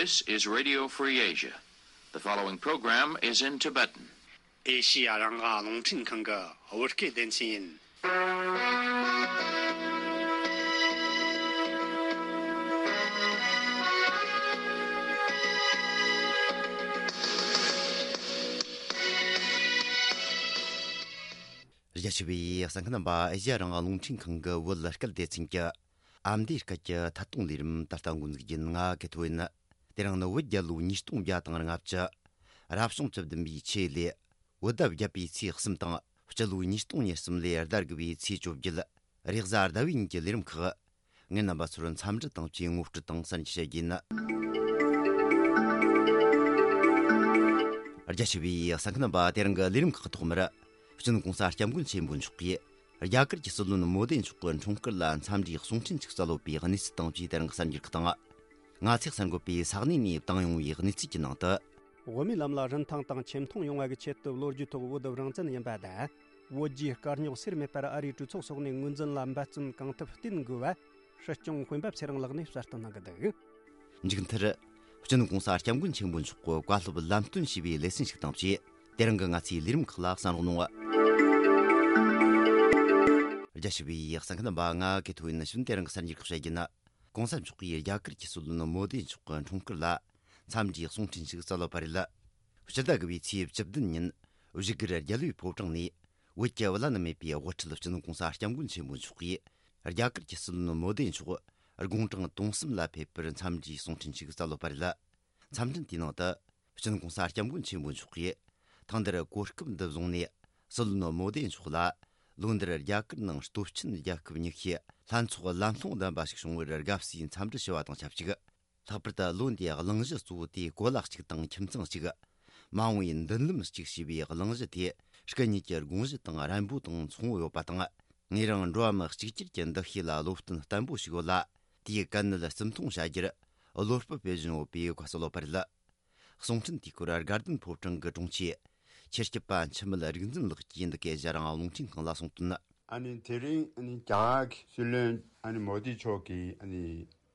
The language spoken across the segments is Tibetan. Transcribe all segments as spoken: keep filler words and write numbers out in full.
This is Radio Free Asia. The following program is in Tibetan. ཨེ་ཤི་ཡ་རང་དབང་རླུང་འཕྲིན་ཁང་གི་བོད་སྐད་སྡེ་ཚན་ཡིན། རྒྱ་ཆེ་བའི་གསན་མཁན་རྣམ་པ། ཨེ་ཤི་ཡ་རང་དབང་རླུང་འཕྲིན་ཁང་གི་བོད་སྐད་སྡེ་ཚན་གྱི་ཨ་མདོའི་སྐད་ཀྱི་ཐད་གཏོང་ལས་རིམ་ད་ལྟ་འགོ་འཛུགས་རྒྱུ་ཡིན། ང་གི་ཐོ་ཡིན། དེ་རིང་ནི་བོད་རྒྱལ་ལོ་ཉིས་སྟོང་བརྒྱ་དང་ལྔ་བཅུ། རབ་བྱུང་བཅུ་བདུན་པའི་ཆུ་ཡོས་ལོའི་བོད་ཟླ་བརྒྱད་པའི་ཚེས་གསུམ་དང་། སྤྱི་ལོ་ཉིས་སྟོང་ཉེར་གསུམ་ལོའི་ཟླ་དགུ་པའི་ཚེས་བཅོ་བརྒྱད། རེས་གཟའ་ཟླ་བའི་ཉིན་གྱི་ལས་རིམ་ཁག་ངས་རྣམ་པ་ཚོར་འཚམས་འདྲི་དང་བཅས་ངོ་སྤྲོད་དང་གསན་རྒྱ་བྱེད་རྒྱུ་ཡིན། རྒྱ་ཆེ་བའི་གསན་མཁན་རྣམ་པ། དེ་རིང་གི་ལས་རིམ་ཁག་གི་ཐོག་མར། སྤྱི་ནོར་༸གོང་ས་༸སྐྱབས་མགོན་ཆེན་པོ་མཆོག་གིས་རྒྱ་གར་གྱི་སྲིད་བློན་མོ་དེ་མཆོག་གི་འཁྲུངས་སྐར་ལ་འཚམས་འདྲིའི་གསུང་འཕྲིན་ཞིག་སྩལ་ཡོད་པའི་གནས་ཚུལ་དང་བཅས་དེ་རིང་གི་གསར་འགྱུར་ཁག་དང་། ང་ཚོས་གསན་དགོས་པའི་ས་གནས་ནས་བཏང་ཡོང་བའི་གནས་ཚུལ་གྱི་ནང་དུ། བོད་མིའི་ལམ་ལ་རིན་ཐང་དང་ཆེ་མཐོང་ཡོང་བ་གི་ཆེད་དུ་ལོ་རྒྱུས་ཐོག་བོད་རང་བཙན་ཡིན་པ་དང་། བོད་རྒྱའི་དཀའ་རྙོག་སེལ་མེད་པར་ཨ་རིའི་གྲོས་ཚོགས་སོགས་ནས་ངོས་འཛིན་ལ་འབད་བརྩོན་གང་ཐུབ་བསྟེན་དགོས་པ། སྲིད་སྐྱོང་དཔོན་པོ་ཚེ་རིང་ལགས་ནས་གསལ་སྟོན་གནང་གི་འདུག་མཇུག་མཐར། སྤྱི་ནོར་༸གོང་ས་༸སྐྱབས་མགོན་ཆེན་པོ་མཆོག་གི་བཀའ་སློབ་ལམ་སྟོན་ཞུས་པའི་ལེ་ཚན་ཞིག་དང་བཅས། དེ་རིང་གི་ང་ཚོའི་ལས་རིམ་ཁག་ལ་གསན་རོགས་གནང་། རྒྱ་ཆེ་བའི་གསན་མཁན་རྣམ་པ། ང་གི་ཐོ་ཡིན། ནི་ཞུན་དེ་རིང་གི་གསར་འགྱུར་ཁག་བཤད་རྒྱུ་ན། ༸གོང་ས་མཆོག་གིས་རྒྱ་གར་གྱི་སྲིད་བློན་མོ་དེ་མཆོག་གི་འཁྲུངས་སྐར་ལ་འཚམས་འདྲིའི་གསུང་འཕྲིན་ཞིག་སྩལ་ཡོད་པ་རེད། སྤྱི་ཟླ་དགུ་པའི་ཚེས་བཅུ་བདུན་ཉིན་བཞུགས་སྒར་རྒྱལ་བའི་ཕོ་བྲང་ནས། བོད་ཀྱི་བླ་ན་མེད་པའི་དབུ་ཁྲིད་སྤྱི་ནོར་༸གོང་ས་༸སྐྱབས་མགོན་ཆེན་པོ་མཆོག་གིས་རྒྱ་གར་གྱི་སྲིད་བློན་མོ་དེ་མཆོག་དགུང་གྲངས་དུང་གསུམ་ལ་ཕེབས་པར་འཚམས་འདྲིའི་གསུང་འཕྲིན་ཞིག་སྩལ་ཡོད་པ་རེད། འཚམས་འཕྲིན་དེའི་ནང་དུ། སྤྱི་ནོར་༸གོང་ས་༸སྐྱབས་མགོན་ཆེན་པོ་མཆོག་གིས། ཐེངས་འདིར་གོ་སྐབས་འདི་བཟུང་ནས། སྲིད་བློན་མོ་དེ་མཆོག་ལ། ལོ་འདིར་རྒྱ་གར་ནང་སྟོབས་ཆེན་རྒྱལ་ཁབ་ཉི་ཤུའི་ལྷན་ཚོགས་ལམ་ལྷོང་ལྡན་པ་ཞིག་བྱུང་བར་དགའ་བསུའི་འཚམས་འདྲི་ཞུ་བ་དང་ཆབས་ཅིག། ལྷག་པར་དུ་ལོ་འདིའི་གླེང་གཞི་གཙོ་བོ་དེ་གོ་ལ་གཅིག་དང་ཁྱིམ་ཚང་གཅིག། མ་འོངས་པའི་མདུན་ལམ་གཅིག་ཞེས་པའི་གླེང་གཞི་དེ། སྐུ་ཉིད་ཀྱི་དགོངས་གཞི་དང་རན་པོ་དང་མཚུངས་པོ་ཡོད་པ་དང་། ངོས་རང་འགྲོ་བ་མི་གཅིག་གྱུར་གྱི་འདུ་ཤེས་ལ་བློ་བརྟན་བརྟན་པོ་ཞིག་ཡོད་ལ། དེའི་དཀའ་གནད་བརྩི་མཐོང་བྱ་རྒྱུར་བློ་སྤོབས་སྤེལ་བཞིན་ཡོད་པའི་བཀའ་སྩལ་ཡོད་པ་རེད། གསུང་འཕྲིན་དེའི་སྐོར་དགའ་ལྡན་ཕོ་བྲང་གི་དྲུང་ཆེ། ཆེར་སྐྱིད་པ་འཆི་མེད་རིག་འཛིན་ལགས་ཀྱིས་འདི་གའི་ཨེ་ཤེ་ཡ་རང་དབང་རླུང་འཕྲིན་ཁང་ལ་གསུངས་དོན། ཨ་ནི་དེ་རིང་ཨ་ནི་རྒྱ་གར་གྱི་སྲིད་བློན་ཨ་ནི་མོ་དི་མཆོག་གིས་ཨ་ནི་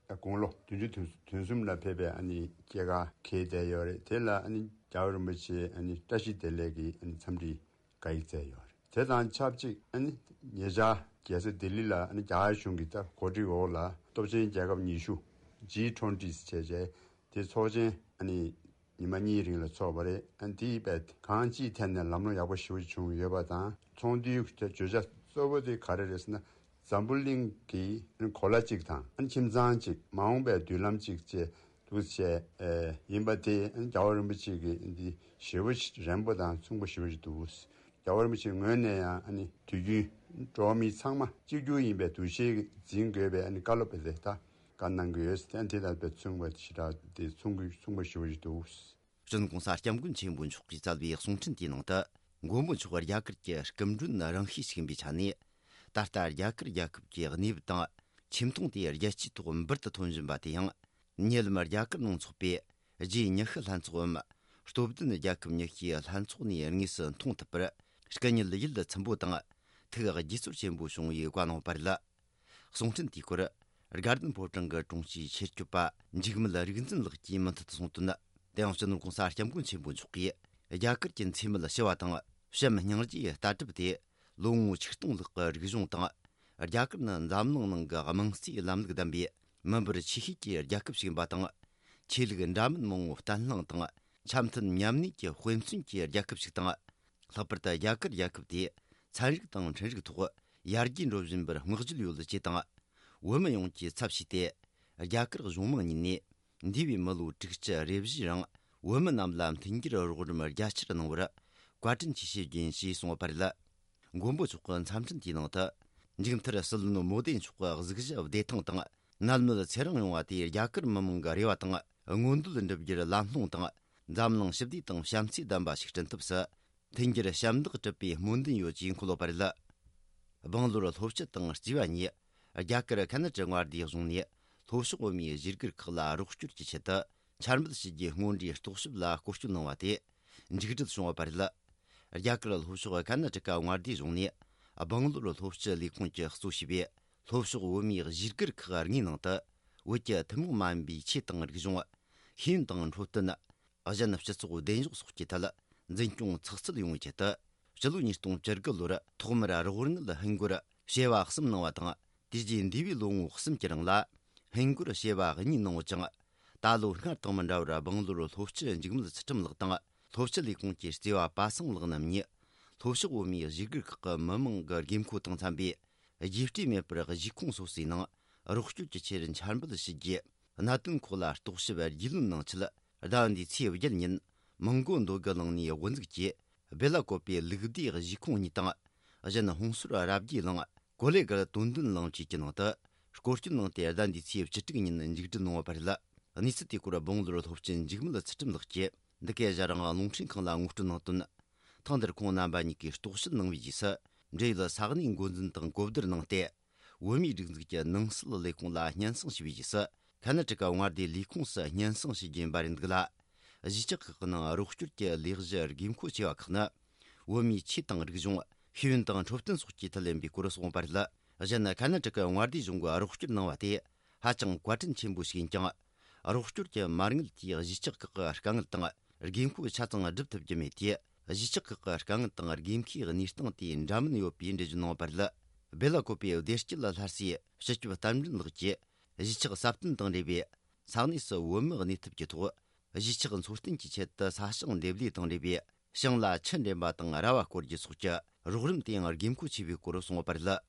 དགུང་ལོ་བདུན་ཅུ་དོན་གསུམ་ལ་ཕེབས་པའི་ཨ་ནི་སྐྱེས་སྐར་འཁེལ་བསྡད་ཡོད་རེད། དེ་ལ་ཨ་ནི་རྒྱལ་བ་རིན་པོ་ཆེ་ཨ་ནི་བཀྲ་ཤིས་བདེ་ལེགས་ཀྱི་ཨ་ནི་འཚམས་འདྲི་བཀའ་ཡིག་སྩལ་ཡོད་རེད། དེ་དང་ཆབས་ཅིག་ཨ་ནི་ཉེ་ཆར་རྒྱལ་ས་ལྡི་ལི་ལ་ཨ་ནི་རྒྱ་གར་གཞུང་གི་ད་གོ་སྒྲིག་འོག་ལ་སྟོབས་ཆེན་རྒྱལ་ཁབ་ཉི་ཤུ་ཇི་ཊུ་ཝེན་ཊི་ཟེར་བྱས་བྱས་དེ་ཚོགས་ཆེན་ཨ་ནི་ཉི་མ་གཉིས་རིང་ལ་ཚོགས་པ་རེད། ཨ་ནི་དེའི་བས་གང་ཅིའི་ཐད་ནས་ལམ་ལྷོང་ཡག་པོ་ཞེ་པོ་བྱུང་ཡོད་པ་དང་། ཚོགས་འདུའི་བརྗོད་བྱ་གཙོ་བོ་དེ་ག་རེ་རེད་ཟེར་ན། འཛམ་བུ་གླིང་གི་གོ་ལ་གཅིག་དང་ཁྱིམ་ཚང་གཅིག་མ་འོངས་པའི་མདུན་ལམ་གཅིག་བཅས་འདུག་བྱས་ཡིན་པ་དེ་རྒྱལ་བ་རིན་པོ་ཆེ་གི་འདི་ཞེ་པོ་རན་པོ་དང་མཚུངས་པོ་ཞེ་པོ་ཞིག་འདུག་རྒྱལ་བ་རིན་པོ་ཆེའི་ངོས་ནས་ཡང་དུས་རྒྱུན་འགྲོ་བ་མི་ཚང་མ་གཅིག་གྱུར་ཡིན་པའི་འདུ་ཤེས་འཛིན་དགོས་པའི་བཀའ་སློབ་དེ་ད་བཀའ་གནང་གི་ཡོད། དེ་དང་མཚུངས་པ་ཞེ་དྲག་དེ་མཚུངས་པོ་ཞེ་པོ་ཞིག་འདུག་སྤྱི་ནོར་༸གོང་ས་༸སྐྱབས་མགོན་ཆེན་པོ་མཆོག་གིས་སྩལ་བའི་གསུང་འཕྲིན་དེའི་ནང་དུ། མགོན་པོ་མཆོག་རྒྱ་གར་གྱི་སྐུ་མགྲོན་རང་ཤེས་ཤིག་ཡིན་པའི་ཆ་ནས། ད་ལྟ་རྒྱ་གར་རྒྱལ་ཁབ་ཀྱི་གནས་བབ་དང་ཆེ་མཐོང་དེ་རྒྱལ་སྤྱིའི་ཐོག་འབུར་དུ་ཐོན་བཞིན་པ་དེ་ཡང་། ཉེ་ལམ་རྒྱ་གར་ནང་འཚོགས་པའི་ཇི་ཉི་ཤུ་ལྷན་ཚོགས་འམ། སྟོབས་ལྡན་རྒྱལ་ཁབ་ཉི་ཤུའི་ལྷན་ཚོགས་ནས་དངོས་སུ་མཐོང་ཐུབ་པར། སྐུ་ཉིད་ཡིད་ཚིམ་པོ་དང་། ཐུགས་དགྱེས་ཚོར་ཆེན་པོ་བྱུང་བའི་བཀའ་གནང་བ་རེད། གསུང་འཕྲིན་དེའི་སྐོར། དགའ་ལྡན་ཕོ་བྲང་གི་དྲུང་ཆེའི་ཆེད་སྐྱོབ་པ་འཇིགས་མེད་རིག་འཛིན་ལགས་ཀྱིས་མུ་མཐུད་དུ་གསུངས་དོན། དེ་ཡང་སྤྱི་ནོར་༸གོང་ས་༸སྐྱབས་མགོན་ཆེན་པོ་མཆོག་གིས་རྒྱ་གར་གྱི་འཚེ་མེད་ཞི་བ་དང་། བྱམས་སྙིང་རྗེའི་ལྟ་གྲུབ་དེ་ལོ་ངོ་ཆིག་སྟོང་ལྷག་གི་རིག་གཞུང་དང་། རྒྱ་གར་ནི་འཛམ་གླིང་ནང་གི་དམངས་གཙོའི་ལམ་ལུགས་ལྡན་པའི་མི་འབོར་ཆེ་ཤོས་ཀྱི་རྒྱལ་ཁབ་ཞིག་ཡིན་པ་དང་། ཆོས་ལུགས་འདྲ་མིན་མང་བོ་བརྟན་ལྷིང་དང་། འཆམ་མཐུན་མཉམ་གནས་ཀྱི་དཔེ་མཚོན་གྱི་རྒྱལ་ཁབ་ཞིག་དང་། ལྷག་པར་དུ་རྒྱ་གར་རྒྱལ་ཁབ་དེ་ཚན་རིག་དང་ཁྲིམས་རིག་ཐོག་ཡར་རྒྱས་འགྲོ་བཞིན་པར་བསྔགས་བརྗོད་ཡོད་ཅེས་དང་། བོད་མི་ཡོངས་ཀྱི་ཚབ་བྱས་ཏེ། རྒྱ་གར་གཞུང་མང་གཉིས་ནས་འདས་པའི་མི་ལོ་དྲུག་ཅུ་རེ་བཞིའི་རིང་བོད་མི་རྣམས་ལ་མཐུན་འགྱུར་རོགས་རམ་རྒྱ་ཆེར་གནང་བར་བཀའ་དྲིན་ཆེ་ཞུ་རྒྱུ་ཡིན་ཞེས་གསུངས་པ་རེད། མགོན་པོ་མཆོག་གི་འཚམས་འཕྲིན་དེའི་ནང་དུ། མཇུག་མཐར་སྲིད་བློན་མོ་དེ་མཆོག་གི་གཟུགས་གཞི་བདེ་ཐང་དང་། ནད་མེད་ཚེ་རིང་ཡོང་བ་དེ་རྒྱ་གར་མི་མང་གི་རེ་བ་དང་མངོན་འདོད་འགྲུབ་རྒྱུར་ལམ་ལྷོང་དང་། འཛམ་གླིང་ཞི་བདེ་དང་བྱམས་བརྩེ་ལྡན་པ་ཞིག་བསྐྲུན་ཐབས་སུ། མཐུན་འགྱུར་ཞབས་འདེགས་སྒྲུབ་པའི་སྨོན་འདུན་ཡོད་ཅེས་འཁོད་ཡོད་པ་རེད། སྦང་ལོར་ལྷོ་སྤྱི་དང་རྩིས་པ་གཉིས་རྒྱ་གར་ཁ་ན་ཏྲ་མངའ་སྡེའི་གཞུང་ནས་ལྷོ་ཕྱོགས་བོད་མིའི་གཞིས་སྒར་ཁག་ལ་རོགས་སྐྱོར་གྱི་ཆེད་དུ་འཆར་འབུལ་ཞུ་རྒྱུའི་སྔོན་འགྲོའི་རྟོག་ཞིབ་ལ་སྐོར་སྐྱོད་གནང་བ་དེ་མཇུག་སྒྲིལ་བྱུང་ཡོད་པ་རེད། རྒྱ་གར་ལྷོ་ཕྱོགས་ཀར་ན་ཊ་ཀ་མངའ་སྡེའི་གཞུང་ནས་སྦང་ལོར་ལྷོ་སྤྱི་ལས་ཁུངས་ཀྱིས་གཙོ་བྱས་པའི་ལྷོ་ཕྱོགས་བོད་མིའི་གཞིས་སྒར་ཁག་ལྔའི་ནང་དུ་བོད་ཀྱི་ཐུན་མོང་མ་ཡིན་པའི་ཆོས་དང་རིག་གཞུང་ ཤེས་ཡོན་དང་འཕྲོད་བསྟེན། གཞན་སྤྱི་ཚོགས་བདེ་འཇགས་སོགས་ཀྱི་ཐད་འཛིན་སྐྱོང་ཚགས་ཚུད་ཡོང་བའི་ཆེད་དུ། སྤྱི་ལོ་ཉིས་སྟོང་བཅུ་དགུ་ལོར་ཐོག་མར་རོགས་དངུལ་ཧིན་སྒོར་བྱེ་བ་གསུམ་གནང་བ་དང་། དེ་རྗེས་འདས་པའི་ལོ་ངོ་གསུམ་གྱི་རིང་ལ་ཧིན་སྒོར་བྱེ་བ་གཉིས་གནང་ཡོད་ཅིང་། ད་ལོ་སྔར་དང་མི་འདྲ་བར་སྦང་ལོར་སློབ་སྤྱི་འཇིགས་མེད་ཚུལ་ཁྲིམས་ལགས་དང་། སློབ་སྤྱི་ལས་ཁུངས་ཀྱི་རྩེ་བ་པ་སངས་ལགས་རྣམ་གཉིས། ལྷོ་ཕྱོགས་བོད་མིའི་གཞིས་སྒར་ཁག་གི་མི་མང་གི་དགོས་མཁོ་དང་འཚམ་པའི་རྒྱས་སྤྲོས་མེད་པར་གཞིས་ཁོངས་སོ་སོའི་ནང་རོགས་སྐྱོར་གྱི་ཆེད་འཆར་འབུལ་ཞུ་རྒྱུ། གནད་དོན་ཁག་ལ་རྟོག་ཞིབ་རྒྱུས་ལོན་གནང་ཆེད། ཟླ་འདིའི་ཚེས་བརྒྱད་ཉིན་མི་མགོ་མདོ་དགུ་གླིང་ནས་དབུ་འཛུགས་ཀྱིས་སྦེ་ལ་ཀོ་པའི་ལུགས་བདེ་གཞིས་ཁོངས་གཉིས་དང་། གཞན་ཧོང་སོར་རབ་རྒྱས་གླིང་། ཀོ་ལེ་གར་དོན་ལྡན་གླིང་བཅས་ཀྱི་ནང་དུ་སྐོར་སྐྱོད་གནང་སྟེ། ཟླ་འདིའི་ཚེས་བཅུ་དྲུག་ཉིན་མཇུག་སྒྲིལ་གནང་བ་བར་ལ། གནས་ཚུལ་དེའི་སྐོར་སྦང་ལོར་སློབ་སྤྱི་འཇིགས་མེད་ཚུལ་ཁྲིམས་ལགས་ཀྱིས་འདི་གའི་ཞྭ་རང་རླུང་འཕྲིན་ཁང་ལ་ངོ་སྤྲོད་གནང་དོན། ཐེངས་འདིར་ཁོང་རྣམ་པ་གཉིས་ཀྱིས་རྟོག་ཞིབ་གནང་བའི་རྗེས་སུ། འབྲེལ་ཡོད་ས་གནས་འགོ་འཛིན་དང་གོ་བསྡུར་གནང་སྟེ། བོད་མིའི་སྒྲིག་འཛུགས་ཀྱི་ནང་སྲིད་ལས་ཁུངས་ལ་སྙན་སེང་ཞུས་པའི་རྗེས་སུ། ཁ་ན་ཊ་ཀ་མངའ་སྡེའི་ལས་ཁུངས་སུ་སྙན་སེང་ཞུ་རྒྱུ་ཡིན་པ་རེད་འདུག་ལ། གཞིས་ཆགས་ཁག་གི་ནང་རོགས་སྐྱོར་གྱི་ལས་གཞི་དགོས་མཁོ་ཆེ་བ་ཁག་ནི། བོད་མིའི་ཆོས་དང་རིག་གཞུང་། ཤེས་ཡོན་དང་འཕྲོད་བསྟེན་སོགས་ཀྱི་ཐད་ཡིན་པའི་སྐོར་གསུངས་པ་རེད། གཞན་ཁ་ན་ཊ་ཀ་མངའ་སྡེ་གཞུང་གིས་རོགས་སྐྱོར་གནང་བ་དེ་ཧ་ཅང་བཀའ་དྲིན་ཆེན་པོ་ཞིག་ཡིན་ཀྱང་། རོགས་སྐྱོར་གྱི་མ་དངུལ་དེས་གཞིས་ཆགས་ཁག་གི་དཀའ་ངལ་དང་དགོས་མཁོ་ཆ་ཚང་སྒྲུབ་ཐུབ་ཀྱི་མེད་དེ། གཞིས་ཆགས་ཁག་གི་དཀའ་ངལ་དང་དགོས་མཁོའི་གནས་སྟངས་དེ་འདྲ་མིན་ཡོད་པའི་འགྲེལ་བརྗོད་གནང་བ་རེད། སྦེ་ལ་ཀོ་པའི་བདེ་སྐྱིད་སླར་གསོའི་སྤྱི་ཁྱབ་རྟ་མགྲིན་ལགས་ཀྱིས། གཞིས་ཆགས་སྲ་བརྟན་དང་འབྲེལ་བའི་ས་གནས་སུ་བོད་མི་གནས་ཐབས་ཀྱི་ཐོག་གཞིས་ཆགས་འཚོ་རྟེན་གྱི་ཆེད་དུ་ས་ཞིང་འདེབས་ལས་དང་འབྲེལ་བའི་ཞིང་ལ་ཆུ་འདྲེན་པ་དང་ར་བ་བསྐོར་རྒྱུ་སོགས་ཀྱི་རོགས་རམ་དེ་ཡང་དགོས་མཁོ་ཆེ་བའི་སྐོར་གསུངས་པ་རེད།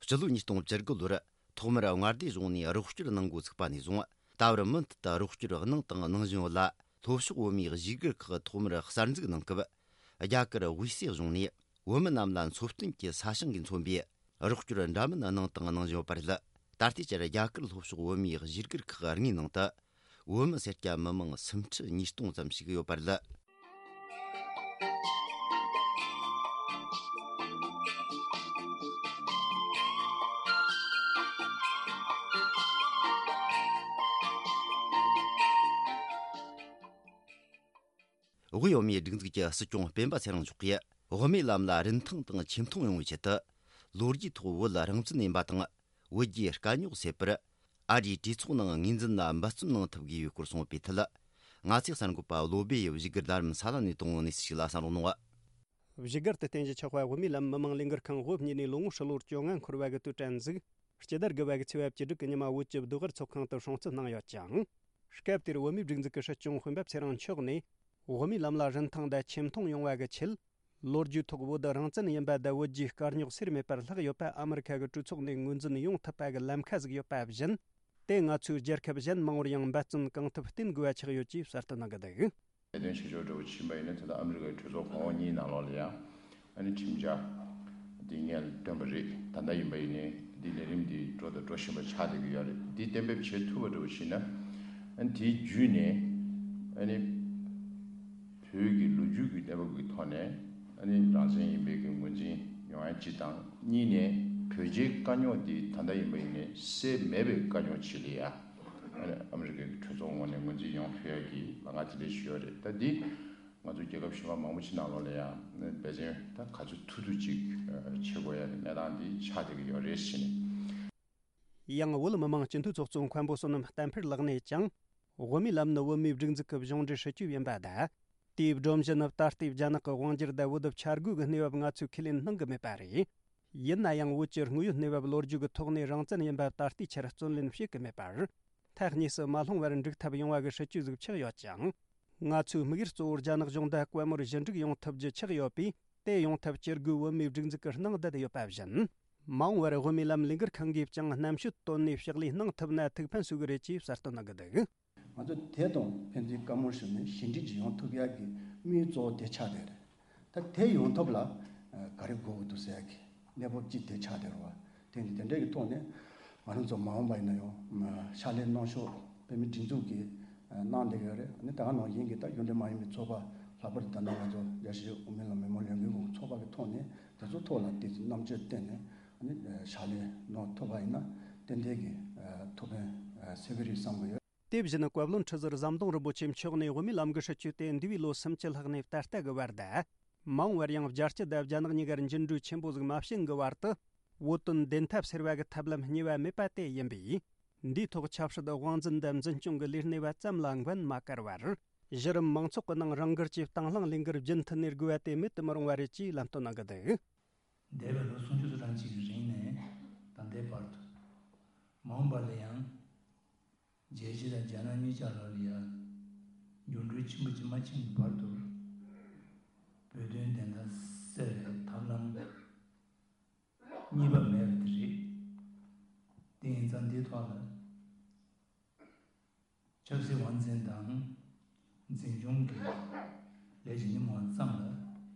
སྤྱི་ལོ་ཉིས་སྟོང་བཅུ་དགུ་ལོར་ཐོག་མར་མངའ་སྡེ་གཞུང་ནས་རོགས་སྐྱོར་གནང་འགོ་ཚུགས་པ་ནས་བཟུང་། ད་བར་མུ་མཐུད་དུ་རོགས་སྐྱོར་གནང་དང་གནང་བཞིན་ཡོད་ལ། ལྷོ་ཕྱོགས་བོད་མིའི་གཞིས་སྒར་ཁག་ཐོག་མར་གསར་འཛུགས་གནང་སྐབས། རྒྱ་གར་དབུས་སའི་གཞུང་ནས་བོད་མི་རྣམས་ལ་འཚོ་རྟེན་གྱི་ས་ཞིང་གིས་མཚོན་པའི་རོགས་སྐྱོར་འདྲ་མིན་གནང་དང་གནང་བཞིན་ཡོད་པ་རེད། ད་ལྟའི་ཆར་རྒྱ་གར་ལྷོ་ཕྱོགས་བོད་མིའི་གཞིས་སྒར་ཁག་ལྔའི་ནང་དུ། བོད་མི་སེར་སྐྱ་མི་མང་སུམ་ཁྲི་ཉིས་སྟོང་ཙམ་ཞིག་ཡོད་པ་རེད། དབུས་བོད་མིའི་སྒྲིག་འཛུགས་ཀྱི་སྲིད་སྐྱོང་སྤེན་པ་ཚེ་རིང་མཆོག་གིས། དབུ་མའི་ལམ་ལ་རིན་ཐང་དང་ཆེ་མཐོང་ཡོང་བའི་ཆེད་དུ། ལོ་རྒྱུས་ཐོག་བོད་རང་བཙན་ཡིན་པ་དང་། བོད་རྒྱའི་དཀའ་རྙོག་སེལ་བར། ཨ་རིའི་གྲོས་ཚོགས་ནང་ངོས་འཛིན་ལ་འབད་བརྩོན་གནང་ཐུབ་དགོས་པའི་སྐོར་གསུངས་པའི་ཐད། ང་ཚོའི་གསར་འགོད་པ་བློ་བྷེ་ཡིས་བཞུགས་སྒར་རྡ་རམ་ས་ལ་ནས་བཏང་བའི་གནས་ཚུལ་ཞིག་ལ་གསན་རོགས་གནང་། བཞུགས་སྒར་དུ་རྟེན་གཞི་ཆགས་པའི་བོད་མིའི་ལམ་མི་མང་ལས་འགུལ་ཁང་དབུ་བརྙེས་ནས་ལོ་ངོ་ཧྲིལ་བོར་བཅོ་ལྔ་འཁོར་བ་གི་དུས་དྲན་གཟིགས། སྤྱི་ཟླ་དགུ་པ་གི་ཚེས་པ་བཅུ་དྲུག་གི་ཉི་མ་བོད་ཀྱི་བདུད་དབར་ཚོགས་ཁང་དུ་སྲུང་བརྩི་གནང་ཡོད་ཅིང་། སྐབས་དེར་བོད་མིའི་སྒྲིག་འཛུགས་ཀྱི་སྲིད་སྐྱོང་སྤེན་པ་ཚེ་རིང་མཆོག་ནས། བོད་མིའི་ལམ་ལ་རིན་ཐང་དང་ཆེ་མཐོང་ཡོང་བ་གི་ཆེད། ལོ་རྒྱུས་ཐོག་བོད་རང་བཙན་ཡིན་པ་དང་བོད་རྒྱའི་དཀའ་རྙོག་སེལ་མེད་པར་ལྷག་ཡོད་པ་ཨ་མི་རི་ཁ་གི་གྲོས་ཚོགས་ནས་ངོས་འཛིན་ཡོང་ཐུབ་པ་གི་ལམ་ཁ་ཟིག་ཡོད་པ་བཞིན། དེ་ང་ཚོའི་རྒྱལ་ཁབ་གཞན་མང་བོར་ཡང་འབད་བརྩོན་གང་ཐུབ་བསྟེན་དགོས་པ་ཆགས་ཡོད་ཅེས་གསལ་སྟོན་གནང་གི་འདུག། ལས་དོན་བྱེད་ཕྱོགས་འདྲ་བོ་ཕྱིན་པ་ཡིན་ན། ད་ལྟ་ཨ་མི་རི་ཀའི་གྲོས་ཚོགས་གོང་འོག་གཉིས་ནང་ལོགས་ལ་ཡང་ཨ་ནི་ཁྲིམས་འཆར་འདི་སྔོན་ལ་བཏོན་པ་རེད། ད་ལྟ་ཡིན་པ་ཡིན་ནའི་འདི་ལས་རིམ་འདི་འགྲོ་དང་འགྲོ་བཞིན་པ་ཆགས་བསྡད་ཀྱི་ཡོད་རེད། འདི་གཏན་འབེབས་བྱེད་ཐུབ་པ་འདྲ་བོ་ཞིག་ན། ཨ་ནི་དེའི་བརྒྱུད་ནས་ཨ་ནི་བོད་ཀྱི་ལོ་རྒྱུས་ཀྱི་གནས་བབ་ཀྱི་ཐོག་ནས་ཨ་ནི་རང་བཙན་ཡིན་པའི་གི་ངོས་འཛིན་ཡོང་ཡ་གཅིག་དང་། གཉིས་ནས་བོད་རྒྱའི་དཀའ་རྙོག་འདི་ད་ལྟ་ཡིན་པ་ཡིན་ནའི་སེལ་མེད་པའི་དཀའ་རྙོག་ཅིག་ལ་ཡ། ཨ་ནི་ཨ་མི་རི་ཀའི་གྲོས་ཚོགས་ངོས་ནས་ངོས་འཛིན་ཡོང་ཐུབ་ཡ་གི་ལམ་ཁ་དེ་འདྲ་ཞིག་ཡོད་རེད། ད་འདི་ང་ཚོ་རྒྱལ་ཁབ་གཞན་པ་མང་པོ་ཅིག་ནང་ལོགས་ལ་ཡང་འབད་བརྩོན་ད་ག་ཚོད་ཐུབ་ཐུབ་ཅིག་བྱེད་དགོས་ཡ་གི་གནས་སྟངས་འདི་ཆགས་བསྡད་ཀྱི་ཡོད་རེད་ཟེར་ནས། ཡང་བོད་མི་མང་སྤྱི་འཐུས་ཚོགས་གཙོ་མཁན་པོ་བསོད་ནམས་བསྟན་འཕེལ་ལགས་ནས་ཀྱང་། བོད་མིའི་ལམ་ནི་བོད་མིའི་སྒྲིག་འཛུགས་ཀྱི་གཞུང་འབྲེལ་སྲིད་ཇུས་ཡིན་པ་དང་། དེའི་སྒྲོམ་གཞི་ནི་ད་ལྟའི་རྒྱ་ནག་གི་དབང་སྒྱུར་དང་བོད་དུ་འཆར་འགོད་ཀྱི་གནས་བབ་ང་ཚོས་ཁས་ལེན་གནང་གི་མེད་པ་རེད། ཡིན་ན་ཡང་བོད་ཀྱི་དངོས་ཡོད་གནས་བབ་ལོ་རྒྱུས་ཀྱི་ཐོག་ནས་རང་བཙན་ཡིན་པ་ད་ལྟའི་ཆར་བརྩོན་ལེན་བྱེད་ཀྱི་མེད་པར། ཐག་ཉེ་སུ་མ་ལྷུང་བར་འགྲིག་ཐབས་ཡོང་བ་གི་སྲིད་ཇུས་ཟིག་ཆགས་ཡོད་ཅིང་། ང་ཚོའི་དམིགས་ཡུལ་གཙོ་བོ་རྒྱ་ནག་གཞུང་དང་བཀའ་མོལ་ཞི་འགྲིག་ཡོང་ཐུབ་རྒྱུ་ཆགས་ཡོད་པས། དེ་ཡོང་ཐབས་ཇུས་འགོད་བོད་མིའི་སྒྲིག་འཛུགས་ཀྱིས་གནང་བསྡད་ཡོད་པ་བཞིན། མ་འོངས་པར་བོད་མིའི་ལམ་ལས་འགུལ་ཁང་གིས་ཀྱང་རྣམ་དཔྱོད་བཏོན་ནས་ཕྱག་ལས་གནང་ཐུབ་ན་ཐུགས་ཕན་གསོས་ཀྱི་རེད་ཅེས་གསལ་སྟོན་གནང་གི་འདུག། ང་ཚོ་དེ་དང་ཕན་ཚུན་བཀའ་མོལ་ཞུས་ནས་ཞི་འགྲིག་ཅིག་ཡོང་ཐུབ་ཡག་གི་དམིགས་ཡུལ་གཙོ་བོ་དེ་ཆགས་བསྡད་རེད། ད་དེ་ཡོང་ཐབས་ལ་ག་རེ་དགོས་ཀྱི་འདུག་ཟེར་ཡག་གི་གནས་བབ་ཅིག་དེ་ཆགས་བསྡད་རེད་བ། དེ་འདི་དེ་འདྲ་གི་ཐོག་ནས་ང་རང་ཚོ་མ་འོངས་པ་ཡིན་ན་ཡང་ཕྱག་ལས་གནང་ཕྱོགས་བོད་མིའི་སྒྲིག་འཛུགས་ཀྱིས་གནང་བསྡད་ཀྱི་ཡོད་རེད། ཨ་ནི་ད་ག་ནང་བཞིན་གྱི་ད་གཞུང་འབྲེལ་མ་ཡིན་པའི་ཚོགས་པ་ལྷག་པར་དུ་ད་ལྟ་ང་ཚོ་རྒྱལ་སྤྱིའི་དབུ་མའི་ལམ་མི་མང་ལས་འགུལ་གྱི་ཚོགས་པ་གི་ཐོག་ནས་དེ་ཚོ་ཐོག་ལ་དེ་ཚོ་རྣམ་དཔྱོད་བཏོན་ནས་ཨ་ནི་ཕྱག་ལས་གནང་ཐུབ་པ་ཡིན་ན་ཏན་ཏན་གྱི་ཐུགས་ཕན་གསོས་ཀྱི་རེད་བསམ་གྱི་ཡོད། དེ་བཞིན་བཀའ་བློན་ཁྲི་ཟུར་ཟམ་གདོང་རིན་པོ་ཆེ་མཆོག་ནས་བོད་མིའི་ལམ་གྱི་སྲིད་བྱུས་དེ་འདས་པའི་ལོ་སུམ་ཅུ་ལྷག་ནས་ད་ལྟ་གི་བར་དུ། མ་འོངས་པར་ཡང་རྒྱལ་སྤྱི་དང་རྒྱ་ནག་གཉིས་ཀར་འགྱུར་འགྲོས་ཆེན་པོ་ཟིག་མ་བྱུང་གི་བར་དུ། བོད་དོན་བདེན་མཐའ་གསལ་བ་གི་ཐབས་ལམ་གཉིས་པ་མེད་པ་དེ་ཡིན་པས། འདིའི་ཐོག་ཆབ་སྲིད་དབང་འཛིན་དང་འཛིན་སྐྱོང་གི་ལས་སྣེ་བ་ཙམ་ལ་འགན་མ་བཀར་བར། གཞི་རིམ་མང་ཚོགས་ཀྱི་ནང་རང་འགུལ་གྱིས་དང་བླངས་ལས་འགུལ་རྒྱུན་མཐུད་ནས་དགོས་པ་དེ་མེད་དུ་མི་རུང་བ་རེད་ཅེས་ལམ་སྟོན་གནང་གི་འདུག། འདས་པའི་ལོ་སུམ་ཅུ་སོ་གྲངས་ཅིག་གི་རིང་ནས་ད་ལྟའི་བར་དུ། མ་འོངས་པ་ལ་ཡང་རྒྱལ་སྤྱི་དང་རྒྱ་ནག་གཉིས་ཆར་ལ་ཡང་འགྱུར་འགྲོས་ཆེན་པོ་ཅིག་མ་ཕྱིན་གྱི་བར་དུ། བོད་དོན་བདེན་མཐའ་གསལ་བའི་ཐབས་ལམ་གཉིས་པ་མེད་པ་དེ་རེད། དེ་ཡིན་ཙང་འདིའི་ཐོག་ལ། ཆབ་སྲིད་དབང་འཛིན་དང་འཛིན་སྐྱོང་གི་ལས་ཀྱི་ཉིན་མོ་ཙམ་ལ་